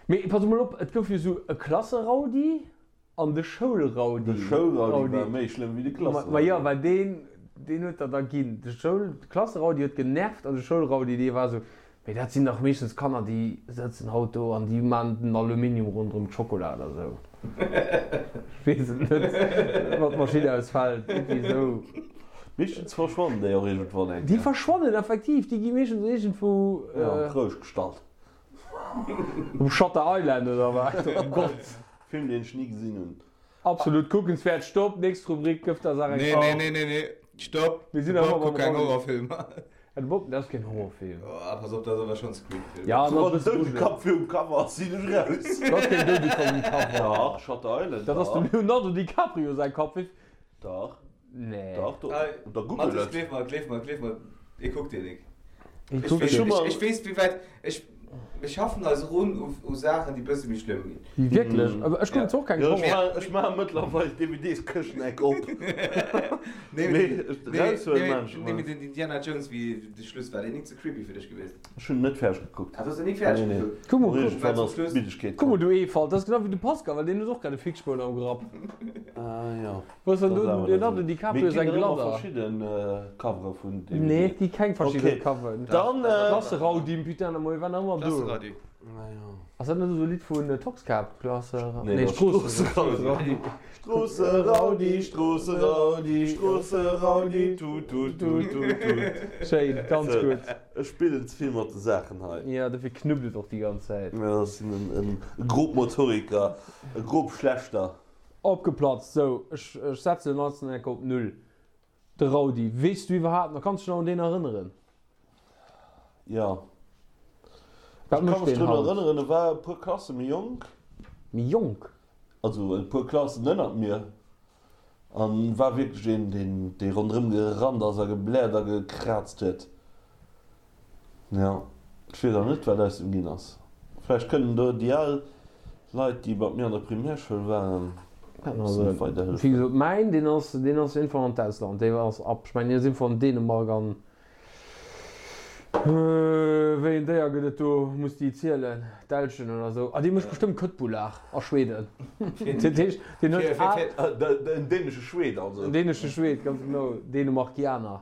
S4: Mee pass emol op, et gouf jo esou e Klasseraudi an de Schoulraudi.
S3: De Schoulraudi war méi schlëmm wéi de Klasseraudi.
S4: Ma jo, well deen, deen huet der da ginn. De Schoul, de Klasseraudi huet genervt an de Schoulraudi, dee war esou, mee dat sinn dach meeschtens Kanner, déi sëtzen haut do an déi man den Aluminium ronderëm d'Schokola oder esou. Ech weess et net, wann d'Maschinn ausfält, iergendwéi esou.
S3: Meeschtens verschwannen déi och iergendwann eng
S4: Déi
S3: Kéier.
S4: verschwannen effektiv, déi gi meeschtens iergendwou.
S3: Jo, an d'Rousch gestallt.
S4: Um Shutter Island oder wat? Oh Gott.
S3: Film deen ech ni gesinn hunn.
S4: Absolut kuckenswäert. Stopp, nächst Rubrik, gëff der Saach eng
S5: Nee,
S4: Chance.
S5: nee, nee, nee, nee, stopp.
S4: Mir sinn
S5: De
S4: nach
S5: Bob
S4: ëmmer
S5: kuckt
S4: beim
S5: keng
S4: Raudi.
S5: Horrorfilmer.
S4: Ja, de Bob, dat ass keen Horrorfilm.
S5: Oh, pass op, dat ass awer schonn Scream-Film.
S4: Ja,
S3: Wann
S4: dat ass
S3: den
S4: e bësse grujeleg.
S3: Doudekapp virum Cover ass, sinn ech raus.
S4: Dat ass keen Doudekapp um Cover.
S3: Dach, Shutter Island,
S4: Dat ass dem
S3: dach.
S4: Leonardo DiCaprio säi Kapp. Wéi.
S3: Dach.
S4: Nee.
S3: Dach, do, da google
S5: Mathis,
S3: et.
S5: gleef mer, gleef mer, gleef mer, e kuckt deen nik.
S4: E
S5: Ech
S4: kuckt
S5: weess,
S4: deen.
S5: ech, ech weess wéi wäit, ech, mir schaffen eis erun u, u Saachen, déi bësse méi schlëmm ginn.
S4: Wierklech? Awer ech kucken zwar och keng
S3: Jo, ech
S4: Horror.
S3: maachen, ech maachen mëttlerweil d'DVDs-Këschen-Eck op.
S5: Nee,
S3: Mee
S5: nee,
S3: ech raushuelen
S5: nee,
S3: maan ech
S5: nee,
S3: emol.
S5: mee den Indiana Jones, wéi de Schluss war, deen nik ze creepy fir dech gewiescht?
S3: Ech hunn en net fäerdeg gekuckt.
S5: Ah, du hues en nik fäerdeg
S3: Nee, nee.
S5: gekuckt?
S4: Kuck mol, kuck.
S3: Iergendwann ass d'Middegkeet
S4: Kuck mol,
S3: komm.
S4: du Eefalt, dat ass genau wéi de Pascal, well deen huet och grad e Fixspoun am Grapp.
S3: Ah, jo.
S4: Wou ass dann
S3: Dat
S4: do
S3: ass
S4: den
S3: awer net
S4: Leonardo
S3: esou.
S4: DiCaprio
S3: Mee et
S4: säin
S3: ginn der ëmmer
S4: Gladder?
S3: verschidden Covere vun DVDen.
S4: Nee, et gi keng verschidden
S3: Okay.
S4: Coveren.
S3: Dann.
S4: Klasseraudi, putain, de Moie war nach ëmmer do.
S5: Klasseraudi.
S4: Ass dat net esou e Lidd vun Toxkäpp? Klasseraudi?
S3: Nee,
S4: Nee,
S3: dat ass
S4: Stroosseraudi.
S3: Stroosseraudi, Stroosseraudi, Stroosseraudi, tut, tut, tut, tut, tut.
S4: Schéin, ganz
S3: Sou,
S4: gutt.
S3: Ech spillen ze vill mat de Saachen hei.
S4: Jo, dofir knuppt et och déi ganz Zäit.
S3: Jo, ech sinn en Grobmotoriker, e Grobschlechter.
S4: Opgeplatzt, sou, ech setzen den ganzen Eck op Null. De Raudi, weess du iwwerhaapt nach, kanns dech nach un deen erënneren?
S3: Jo.
S4: Wat
S3: Ech ka
S4: mécht
S3: mech
S4: deen
S3: drun
S4: haut?
S3: erënneren, e war e puer Klasse méi jonk.
S4: Méi jonk?
S3: Also e puer Klassen ënnert mir. An war wierklech een, deen, dee ronderëm gerannt ass a gebläert a gekraazt huet. Jo, ech weess awer net, wat aus em ginn ass. Vläicht kënnen do déi al Leit, déi mat mir an der Primärschoul waren, e bëssen weiderhëllefen.
S4: Wéi gesot, mäin, deen ass, deen ass iergendwann an d'Ausland, dee ass ab, ech mengen, deen ass iergendwann an Dänemark an Wéi en Déier gëtt et do? Muss déi zielen? D'Elchen oder sou? Ah, dee mécht bestëmmt Köttbullar a Schweden. Dat heescht, deen huet al.
S3: En dänesche Schwed also.
S4: En dänesche Schwed, ganz genau. Dänemarkianer.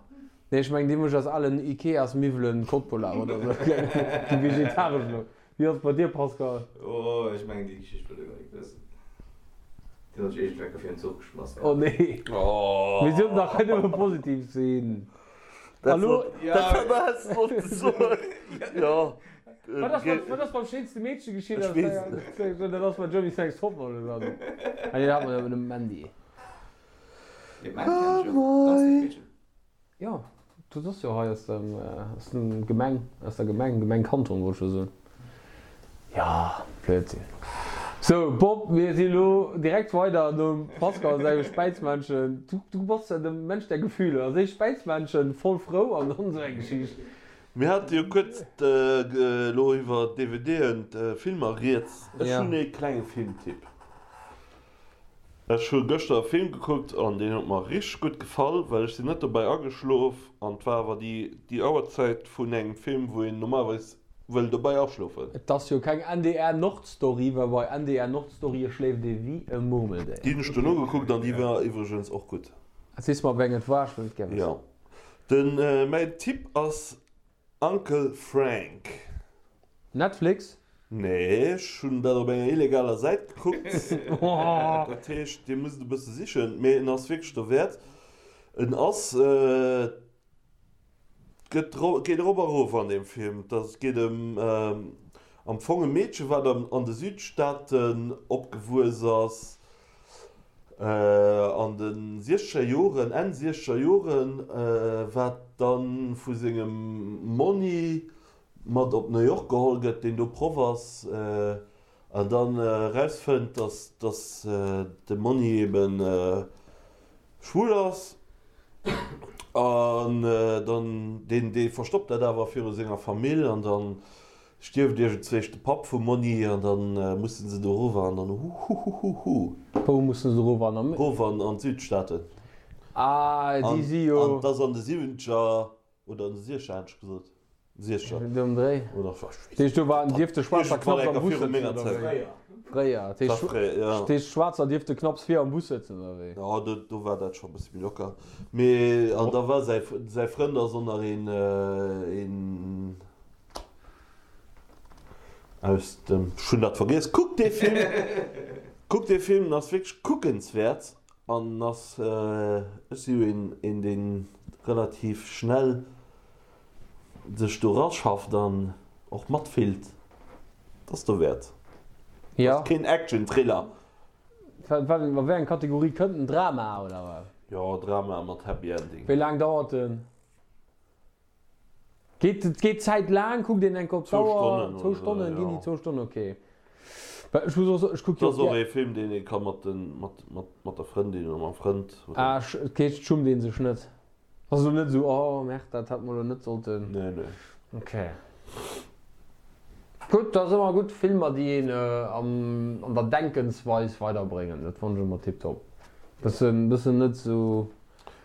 S4: Nee, ech mengen, dee mécht aus alen Ikeas-Miwwelen Köttbullar oder sou. Déi vegetaresch elo. Wéi ass et bei dir, Pascal?
S5: Oh, ech mengen déi Geschicht wëll e gar nik wëssen. Déi huet sech iergendwéi fir en Zuch geschmass
S4: gehat. Oh nee. Mir sollten dach hei nëmme positiv sinn. Hallo?
S3: Dat häss de sollte soen. Jo.
S4: Wat ass wat ass beim schéinste Meedche geschitt?
S3: Ech weess et net.
S4: Dat ass bei Germany's Next Topmodel oder sou. Ah nee, dat hat mer jo dem Mandy.
S5: Dee Mandy kenn ech jo. Ganz lieft Meedchen.
S4: Jo, dat ass jo hei aus dem, aus dem Gemeng, aus der Gemeng, Gemeng Kanton wollt ech jo soen. Jo, Blödsinn. Sou, Bob, mir si lo direkt weider nom Pascal sengem Späizmännchen. Du, du bass jo de Mensch der Gefühle. Als éischt Späizmännchen, voll frou an dann esou eng Geschicht.
S3: Mir hate jo kuerz elo iwwer DVDen, Filmer rieds. Ech hunn ee klenge Filmtipp. Ech hu gëschter e Film gekuckt an deen huet mer richteg gutt gefall, well ech sinn net dobäi ageschlof an et war awer déi déi Auerzäit vun engem Film wou een normalerweis wëll dobäi aschlofen.
S4: Et ass jo keng NDR Nordstory, well bei NDR Nordstorye schléift ee wéi e Murmeldéier.
S3: Déi hunn ech dono gekuckt an déi war iwwregens och gutt.
S4: Sees mer wéi eng et war, ech wëll et gär wëssen.
S3: Jo, den mäin Tipp ass Uncle Frank.
S4: Netflix?
S3: Nee, ech hunn dat op enger illegaler Säit gekuckt. Dat heescht, dir musst e bësse sichen, mee en ass wierklech derwäert. En ass, et gëtt, geet erop a erof an deem Film. Et ass, geet ëm am Fong e Meedche wat an de Südstaaten opgewuess ass, An de siechzeger Joren, Enn siechzeger Joren, wat dann vu sengem Monni mat op New York geholl gëtt, deen do Proff ass, an dann erausfënnt, dass dass de Monni eben schwul ass, an dann deen dee verstoppt dat awer viru senger Famill, an dann Stierft iergendzwéisch de Papp vum Monni an dann mussen se do rower an dann huhuhuhu.
S4: Wou mussen se rower an?
S3: Rower an d'Südstaaten.
S4: Ah, déi si jo.
S3: An 't ass an de Siwwenzeger oder an de Siechzeger hat ech gesot, Siechzeger.
S4: Do um Dréi.
S3: Oder ech weess
S4: Dat heescht do waren, dierfte Schwaarzer knapps am Bus
S3: Viru menger
S4: sëtzen, oder
S3: Zäit.
S4: wéi? Fréier. Dat
S3: heescht,
S4: fréier,
S3: ja.
S4: Dat heescht Schwaarzer dierfte knapps vir am Bus sëtzen, oder wéi?
S3: Jo, do, do war dat scho e bësse méi locker. Mee, an da war säi, säi Frënd ass och nach een, een. Aus dem, ech hunn dat vergiess, kuckt dee Film, kuckt dee Film, en ass wierklech kuckenswäert an en ass, ech si jo een, een deen relativ schnell sech do raschafft an och matfillt, et ass dowäert. Et ass keen Action-Thriller.
S4: Wat, a wéi eng Kategorie kënnt en? Drama oder wat?
S3: Jo, Drama mat Happy Ending.
S4: Wéi laang dauert en? Geet geet d'Zäit laang? Kuckt een enk op d'Auer? Zwou Stonnen, ginn déi zwou Stonnen, ok. Well ech muss och soen, ech kuck jo
S3: Dat ass och ee Film, deen ee ka mat den, mat, mat, mat der Frëndin oder mam Frënd
S4: oder. Ah, dat heescht, et schummt ee sech net? Ass elo net esou, oh merde, dat hätt mer elo net sollten.
S3: Nee, nee.
S4: Ok. Gutt, dat ass ëmmer gutt, Filmer, déi een am, an der Denkensweis weiderbréngen, dat fannen ech ëmmer tiptop. Bëssen, bëssen net esou.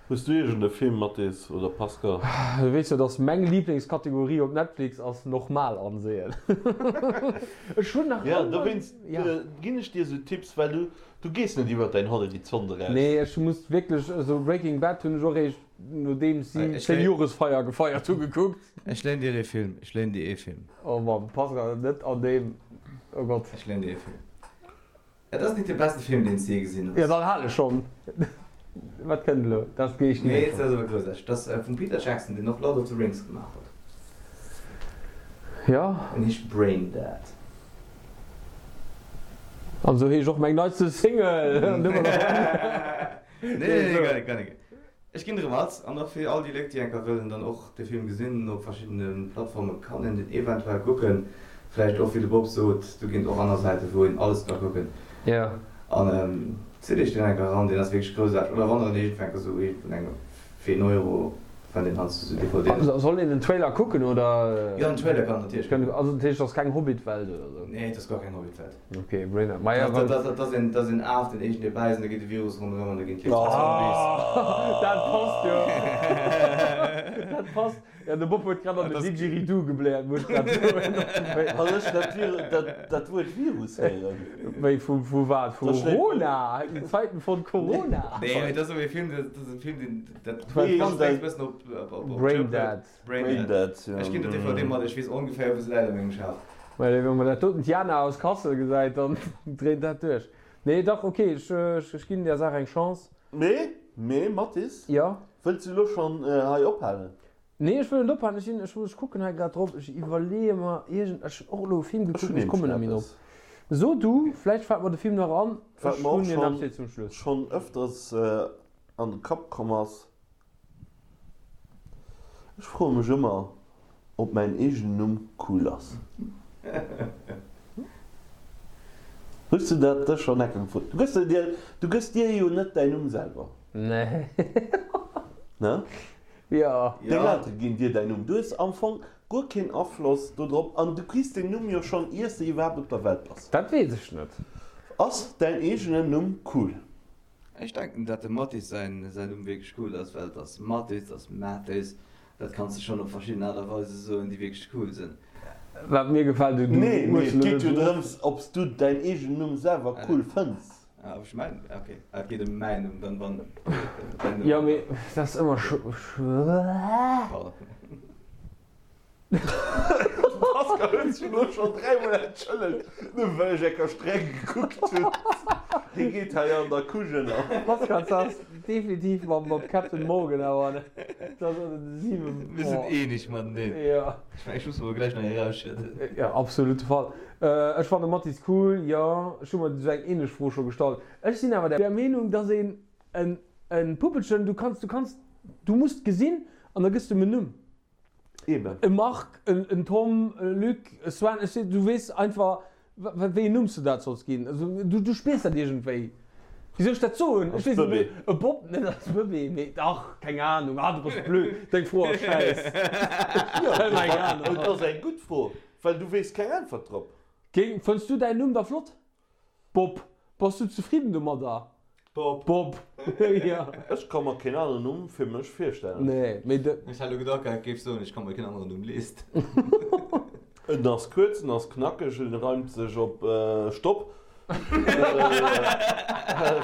S3: Hues du iergend e Film, Mathis oder Pascal?
S4: Du weess jo dass meng Lieblingskategorie op Netflix ass normal ansehen. Ech hunn nach
S3: Ja,
S4: ëmmer,
S3: dowéinst
S4: ja.
S3: ginn ech dir esou Tipps, well du, du gees net iwwert däin Horizont eraus.
S4: Nee, ech muss wierklech, also Breaking Bad hunn ech och eréischt nodeems si
S5: Ech
S4: 10
S5: léi.
S4: Joresfeier gefeiert hu gekuckt.
S5: Ech léin dir ee Film, ech léin dir ee Film.
S4: Oh Mann, Pascal, net an deem, oh Gott.
S5: Ech léin dir ee Film. Et ass nit de besten Film deen s de je gesinn hues.
S4: Jo dann hal ech schon. Wat kënnt elo? Dat gehe ech
S5: Nee,
S4: net.
S5: dat ass awer groussaarteg. Dat ass vum Peter Jackson, deen och Lord of the Rings gemaach huet.
S4: Jo.
S5: En heescht Braindead.
S4: An esou heescht och meng neitste Single.
S5: Nee, nee, nee, gar nik, gar nik. Ech ginn erëm als, an och fir all déi Léit déi enker wëllen dann och de Film gesinn, op verschiddene Plattforme kann een den eventuell kucken, vläicht och wéi de Bob sot, do ginn et och aner Säiten wou een alles ka kucken.
S4: Jo.
S5: An. Zitt iech deen enker eran, deen ass wierklech groussaarteg. Oder wann der en iergendwou enker sou iergendwou eng fir een Euro fënnt een heiansdo sou DVDen.
S4: Soll een den Trailer kucken oder?
S5: Jo den Trailer kann natierlech kucken.
S4: Also dat heescht et ass keng Hobbit-Welt oder sou?
S5: Nee et ass guer keng Hobbit-Welt.
S4: Ok, Brainer. Maja
S5: wann. Dat ass een, dat ass een Af deen iergendwéi bäisst an da geet de Virus ronderëm an da ginn d'Leit zu Zombies.
S4: Dat passt jo. Dat passt. Jo, de Bob huet grad an den Didgeridoo gebläert, muss ech grad soen.
S3: Wann ech dat Vir, dat, dat Wuert Virus héieren.
S4: Wéi, vu, vu wat? Vu Rona? In Zeiten von Corona?
S5: Nee, mee dat ass awer e Film, dat ass e Film, deen, dat
S3: Wéi
S5: passt
S3: heescht
S5: e bëssen op, op, op, op
S4: Brain Dead.
S5: Brain
S3: Brain
S5: Dead.
S3: Dead, jo.
S5: Ech ginn der DVD mat, ech weess ongeféier, wou se läit a mengem Schaf.
S4: Well, wann mer dat doten d'Jana aus Kassel gesäit, dann dréint dat duerch. Nee, dach, ok, ech, ech ginn där Saach eng Chance.
S3: Mee, mee, Mathis,
S4: Jo?
S3: wëlls du elo schonn hei ophalen?
S4: Nee, ech wëll net ophalen. Ech sinn, ech, ech kucken hei grad drop. Ech iwwerleeë mer iergend, ech hunn och elo e Film
S3: Ech
S4: gekuckt,
S3: hunn
S4: mee ech
S3: nämlech
S4: kommen net méi drop.
S3: eppes.
S4: So du, vläicht fält mer de Film nach an.
S3: Wat
S4: Ech
S3: mer och
S4: hunn en
S3: schonn,
S4: eppes fir zum Schluss.
S3: schonn ëfters an de Kapp komm ass, Ech froe mech ëmmer, ob mäin eegenen Numm cool ass. Hues du dat dech schonn enke gefrot? Du gëss dir, du gëss dir jo net däin Numm selwer.
S4: Nee.
S3: Ne?
S4: Jo.
S3: Deng Eltere ginn dir däin Numm. Du hues am Fong guer keen Afloss do drop an du kriss deen Numm jo schonn iers de iwwerhaapt op der Welt bass.
S4: Dat weess ech net.
S3: Ass däin eegenen Numm cool?
S5: Ech denken dat dem Mathis säin Numm wierklech cool ass, well et ass Mathis, et ass Mathis, dat kanns de schonn op verschidden Aart a Weise soen déi wierklech cool sinn.
S4: Wat mir gefält, du
S3: Nee, mee
S4: hues
S3: et
S4: elo
S3: geet
S4: net
S3: jo
S4: drop.
S3: drëms, ob s du däin eegenen Numm selwer cool fënns.
S5: Ah, ob ech mäin, ok, ah, et geet ëm mäin Numm, dann wann däin Numm.
S4: Jo, mee dat ass ëmmer schwéier.
S5: Pardon.
S3: Pascal huet sech elo schonn dräimol entschëllegt, nëmme well ech enker streng gekuckt hunn. Hie geet hei an der Couche ënner.
S4: Pascal, dat ass definitiv mam Captain Morgan awer dat ass ënner de 7.
S5: Mir sinn eeneg mateneen.
S4: Jo.
S5: Ech mengen, ech muss mer gläich nach ee rausschëdden.
S4: Jo, absolut de Fall. Ech fanne Mathis cool, jo. Ech hu mer esou eng ähnlech Fro scho gestallt. Ech sinn awer der Meenung, dass een en Puppelchen, du kanns, du kanns, du muss gesinn an da gëss de em en Numm.
S3: Eben.
S4: E Marc, en Tom, e Luc, e Sven, ech seet, du weess einfach, wéi en Numm s du dat solls ginn. Also du, du spiers dat iergendwéi. Wéi soll ech dat soen? Ech weess net, mee e Bob, net als Bëbee, mee dach, keng Anung. Ah, du bass blöd, deng Fro ass schäiss.
S3: Jo,
S4: Keng Anung.
S3: et ass eng gutt Fro, well du weess keng Äntwert drop.
S4: Géing, fënns du däin Numm da flott? Bob, bass du zefridden domadder?
S3: Bob.
S4: Bob, jo.
S3: Ech ka mer keen aneren Numm fir mech virstellen.
S4: Nee, mee de.
S5: Ech hat elo gedacht, et géif soen, ech ka mer keen aneren Numm leeschten.
S3: En ass kuerz, en ass knackeg, en reimt sech op Stopp.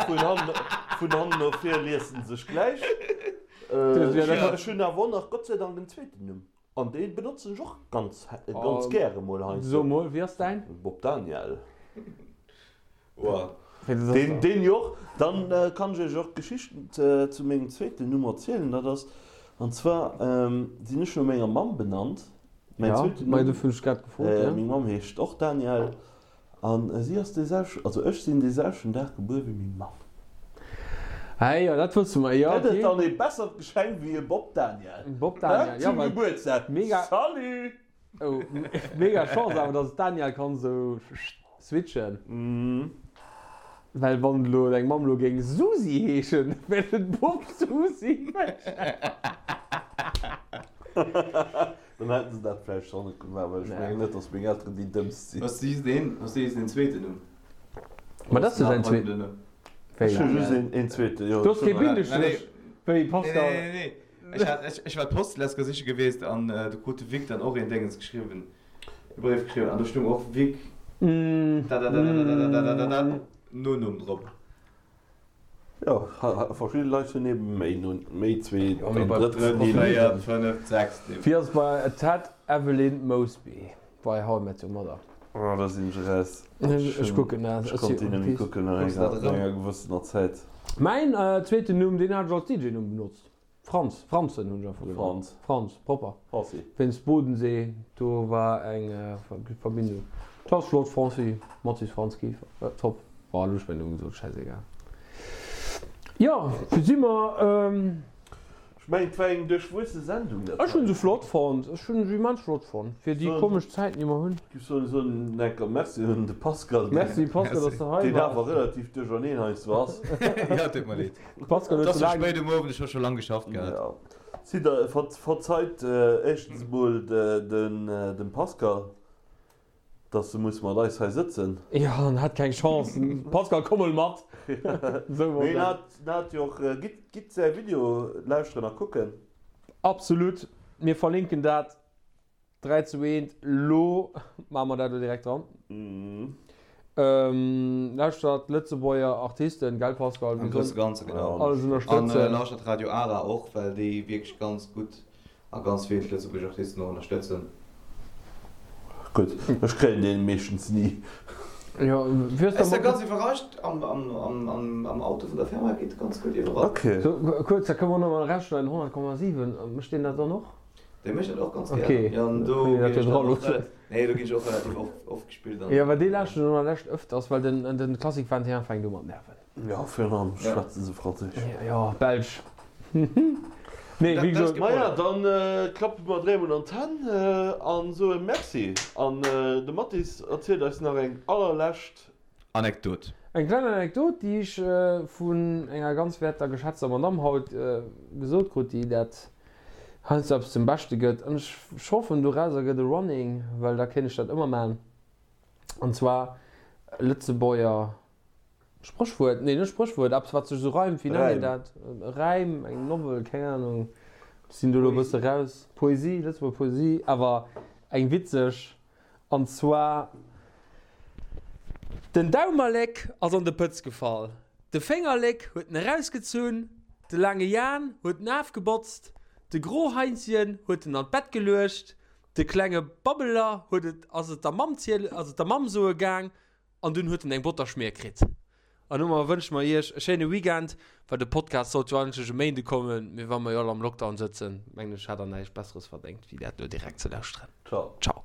S3: Vun hannen no vir liest en sech gläich. Ech hunn awer och nach Gott sei Dank en zweeten Numm. An dee benotzen ech och ganz ganz gäre mol heiansdo.
S4: So mol, wéi ass däin?
S3: Bob Daniel.
S5: Wow.
S3: Deen, deen jo och. Dann kann ech iech och d'Geschicht zu mengem zweeten Numm erzielen. Dat ass, an zwar sinn ech no menger Mamm benannt. Mäin zweeten
S4: Numm.
S3: Dofir hunn
S4: ech grad gefrot, ja.
S3: Meng Mamm heescht och Daniel. An si ass dee selwechten, also ech sinn dee selwechten Dag gebuer wéi meng Mamm.
S4: Ah jo, dat wësse mer, jo,
S3: Gëtt et
S4: ok.
S3: dann ee bessert Geschenk wéi e Bob Daniel?
S4: Bob Daniel, jo,
S3: Zum
S4: well
S3: Gebuertsdag,
S4: mega,
S3: salut!
S4: oh, mega Chance awer, dass d'Daniel kann esou switchen. Well wann elo deng Mamm elo géing Susi heeschen, wär et Bob Susi.
S3: Dann hätten se dat vläicht schonn net gemaach, well ech mengen net, datt meng Elteren déi dëmmst sinn.
S5: Hues du just een, hues du just een zweeten Numm?
S4: Ma dat ass jo säin zweeten. Wéi?
S3: Ech hu just een zweeten, jo.
S4: Du hues kee Bindestréch wéi Pascal.
S5: Nee, nee, nee. Ech hat, ech, ech war d'Post letzte siche geweest an do krut de Vic dann och een Déngens geschriwwen, e Bréif geschriwwen an do stung och Vic dadadadadadadadadada Nonumm drop.
S3: Jo, verschidde Leit hunn eben méi no, méi zweet
S4: Jo, mee
S3: an
S4: bei
S3: drëtt
S5: Drëtt,
S3: Nimm.
S5: véiert, fënneft, sechst Nimm.
S4: Wéi ass et bei Ted, Evelyn Mosby bei How I Met Your Mother?
S3: Oh, da sinn ech eraus.
S4: Ech kucken dat.
S3: Ech konnt déi net méi kucken no
S5: Kucks dat
S3: enger,
S5: erëm?
S3: enger gewëssener Zäit.
S4: Mäin zweeten Numm, deen hat ech als DJ-Numm benotzt. Franz, Franzen hunn ech einfach genannt.
S3: Franz.
S4: Franz, propper.
S3: Franzi.
S4: Wéinst Bodensee, do war eng Verbindung. Dat ass flott, Franci, Mathis Franz Kieffer, top. Bon, elo hu ech mäin Numm gesot, schäisegal. Jo, wou si mer?
S3: Ech. Ech mengen et war eng duerchwuesse Sendung dat
S4: Ech hunn
S3: hei.
S4: se flott fonnt. Ech hunn se immens flott fonnt fir déi komesch Zäiten déi mer hunn.
S3: Giff soen soen enker Merci un de Pascal deen
S4: Merci Pascal dass de hei
S3: deen
S4: waars.
S3: awer relativ duercherneen heiansdo ass.
S5: Jo, tut mer leed.
S4: Pascal
S5: Et
S4: huet
S5: ass
S4: sou
S5: scho
S4: laang.
S5: spéit um Owend, ech hu scho lang geschafft gehat.
S3: Jo. Sidd der, verzeit éischtens emol dem Pascal Dass e muss mat eis hei sëtzen.
S4: Jo, en hat keng Chance. Pascal, komm mol mat! Esou wor
S3: Mee en
S4: dat.
S3: hat, en hat jo och, gitt, gitt säi Video lauschteren a kucken.
S4: Absolut, mir verlinken dat 3 zu 1. Lo maache mer dat elo direkt dran. Lauschtert Lëtzebuerger Artisten, gell Pascal?
S5: Am grousse Ganze, genau.
S4: Alles
S5: An
S4: ënnerstëtzen.
S5: lauschtert Radio Ara och, well déi wierklech ganz gutt A ganz vill lëtzebuergesch Artisten och ënnerstëtzen.
S3: Gutt, ech kréien deen meeschtens ni.
S4: Jo, wéi ass
S5: Ech
S4: da
S5: si ganz iwwerrascht, am Auto vun der Firma geet ganz gutt iwwerall.
S3: Ok.
S4: Sou, kuerz, da kënne mer nach mal erausschneiden, 100,7, mécht deen dat dann och?
S5: Dee mécht dat och ganz
S4: Ok,
S5: gär. Jo, an do
S4: kënnt een
S5: ginn
S4: dat jo
S5: ech dann
S4: dra
S5: och
S4: loossen.
S5: relativ, nee, do ginn ech och relativ oft, oft gespillt an.
S4: Jo, well dee lauschteren ech an der Lescht ëfters, well den, den Classic 21 fänkt u mat nerven.
S3: Jo, virun allem schwätze se Franséisch.
S4: Jo, Belsch. Nee, wéi gesot.
S3: Maja, dann klappe mer dréimol an d'Hänn an soe Merci. An de Mathis erzielt eis nach eng allerlescht.
S5: Anekdot.
S4: Eng kleng Anekdot, déi ech vun enger ganz werter geschätzter Madamm haut gesot krut, déi dat heiansdo eppes zum Beschte gëtt. An ech hoffen, dorauser gëtt e Running, well da kéint ech dat ëmmer maachen. An zwar Lëtzebuerger Spréchwuert, nee net Spréchwuert, eppes wat sech esou reimt, wéi nennt een dat? E Räim, eng Novel, keng Ahnung, ech sinn do elo e bësse raus. Poesie, Lëtzebuerger Poesie, awer eng witzeg, an zwar, Den Daumerléck ass an de Pëtz gefall, de Féngerléck huet en erausgezunn, de laange Jan huet en afgebotzt, de Groheinzchen huet en an d'Bett geluecht, de klenge Babbeler huet et, ass et der Mamm ziele, ass et der Mamm soe gaang, An dunn huet en eng Botterschmier kritt. An domat wënsche mer iech e schéine Weekend, well de Podcast sollt jo eigentlech e Méinde kommen, mee wa mer jo all am Lockdown sëtzen, mengen ech, hat der näischt Besseres verdéngt, wéi dat elo direkt ze lauschteren.
S3: Ciao.
S4: Ciao.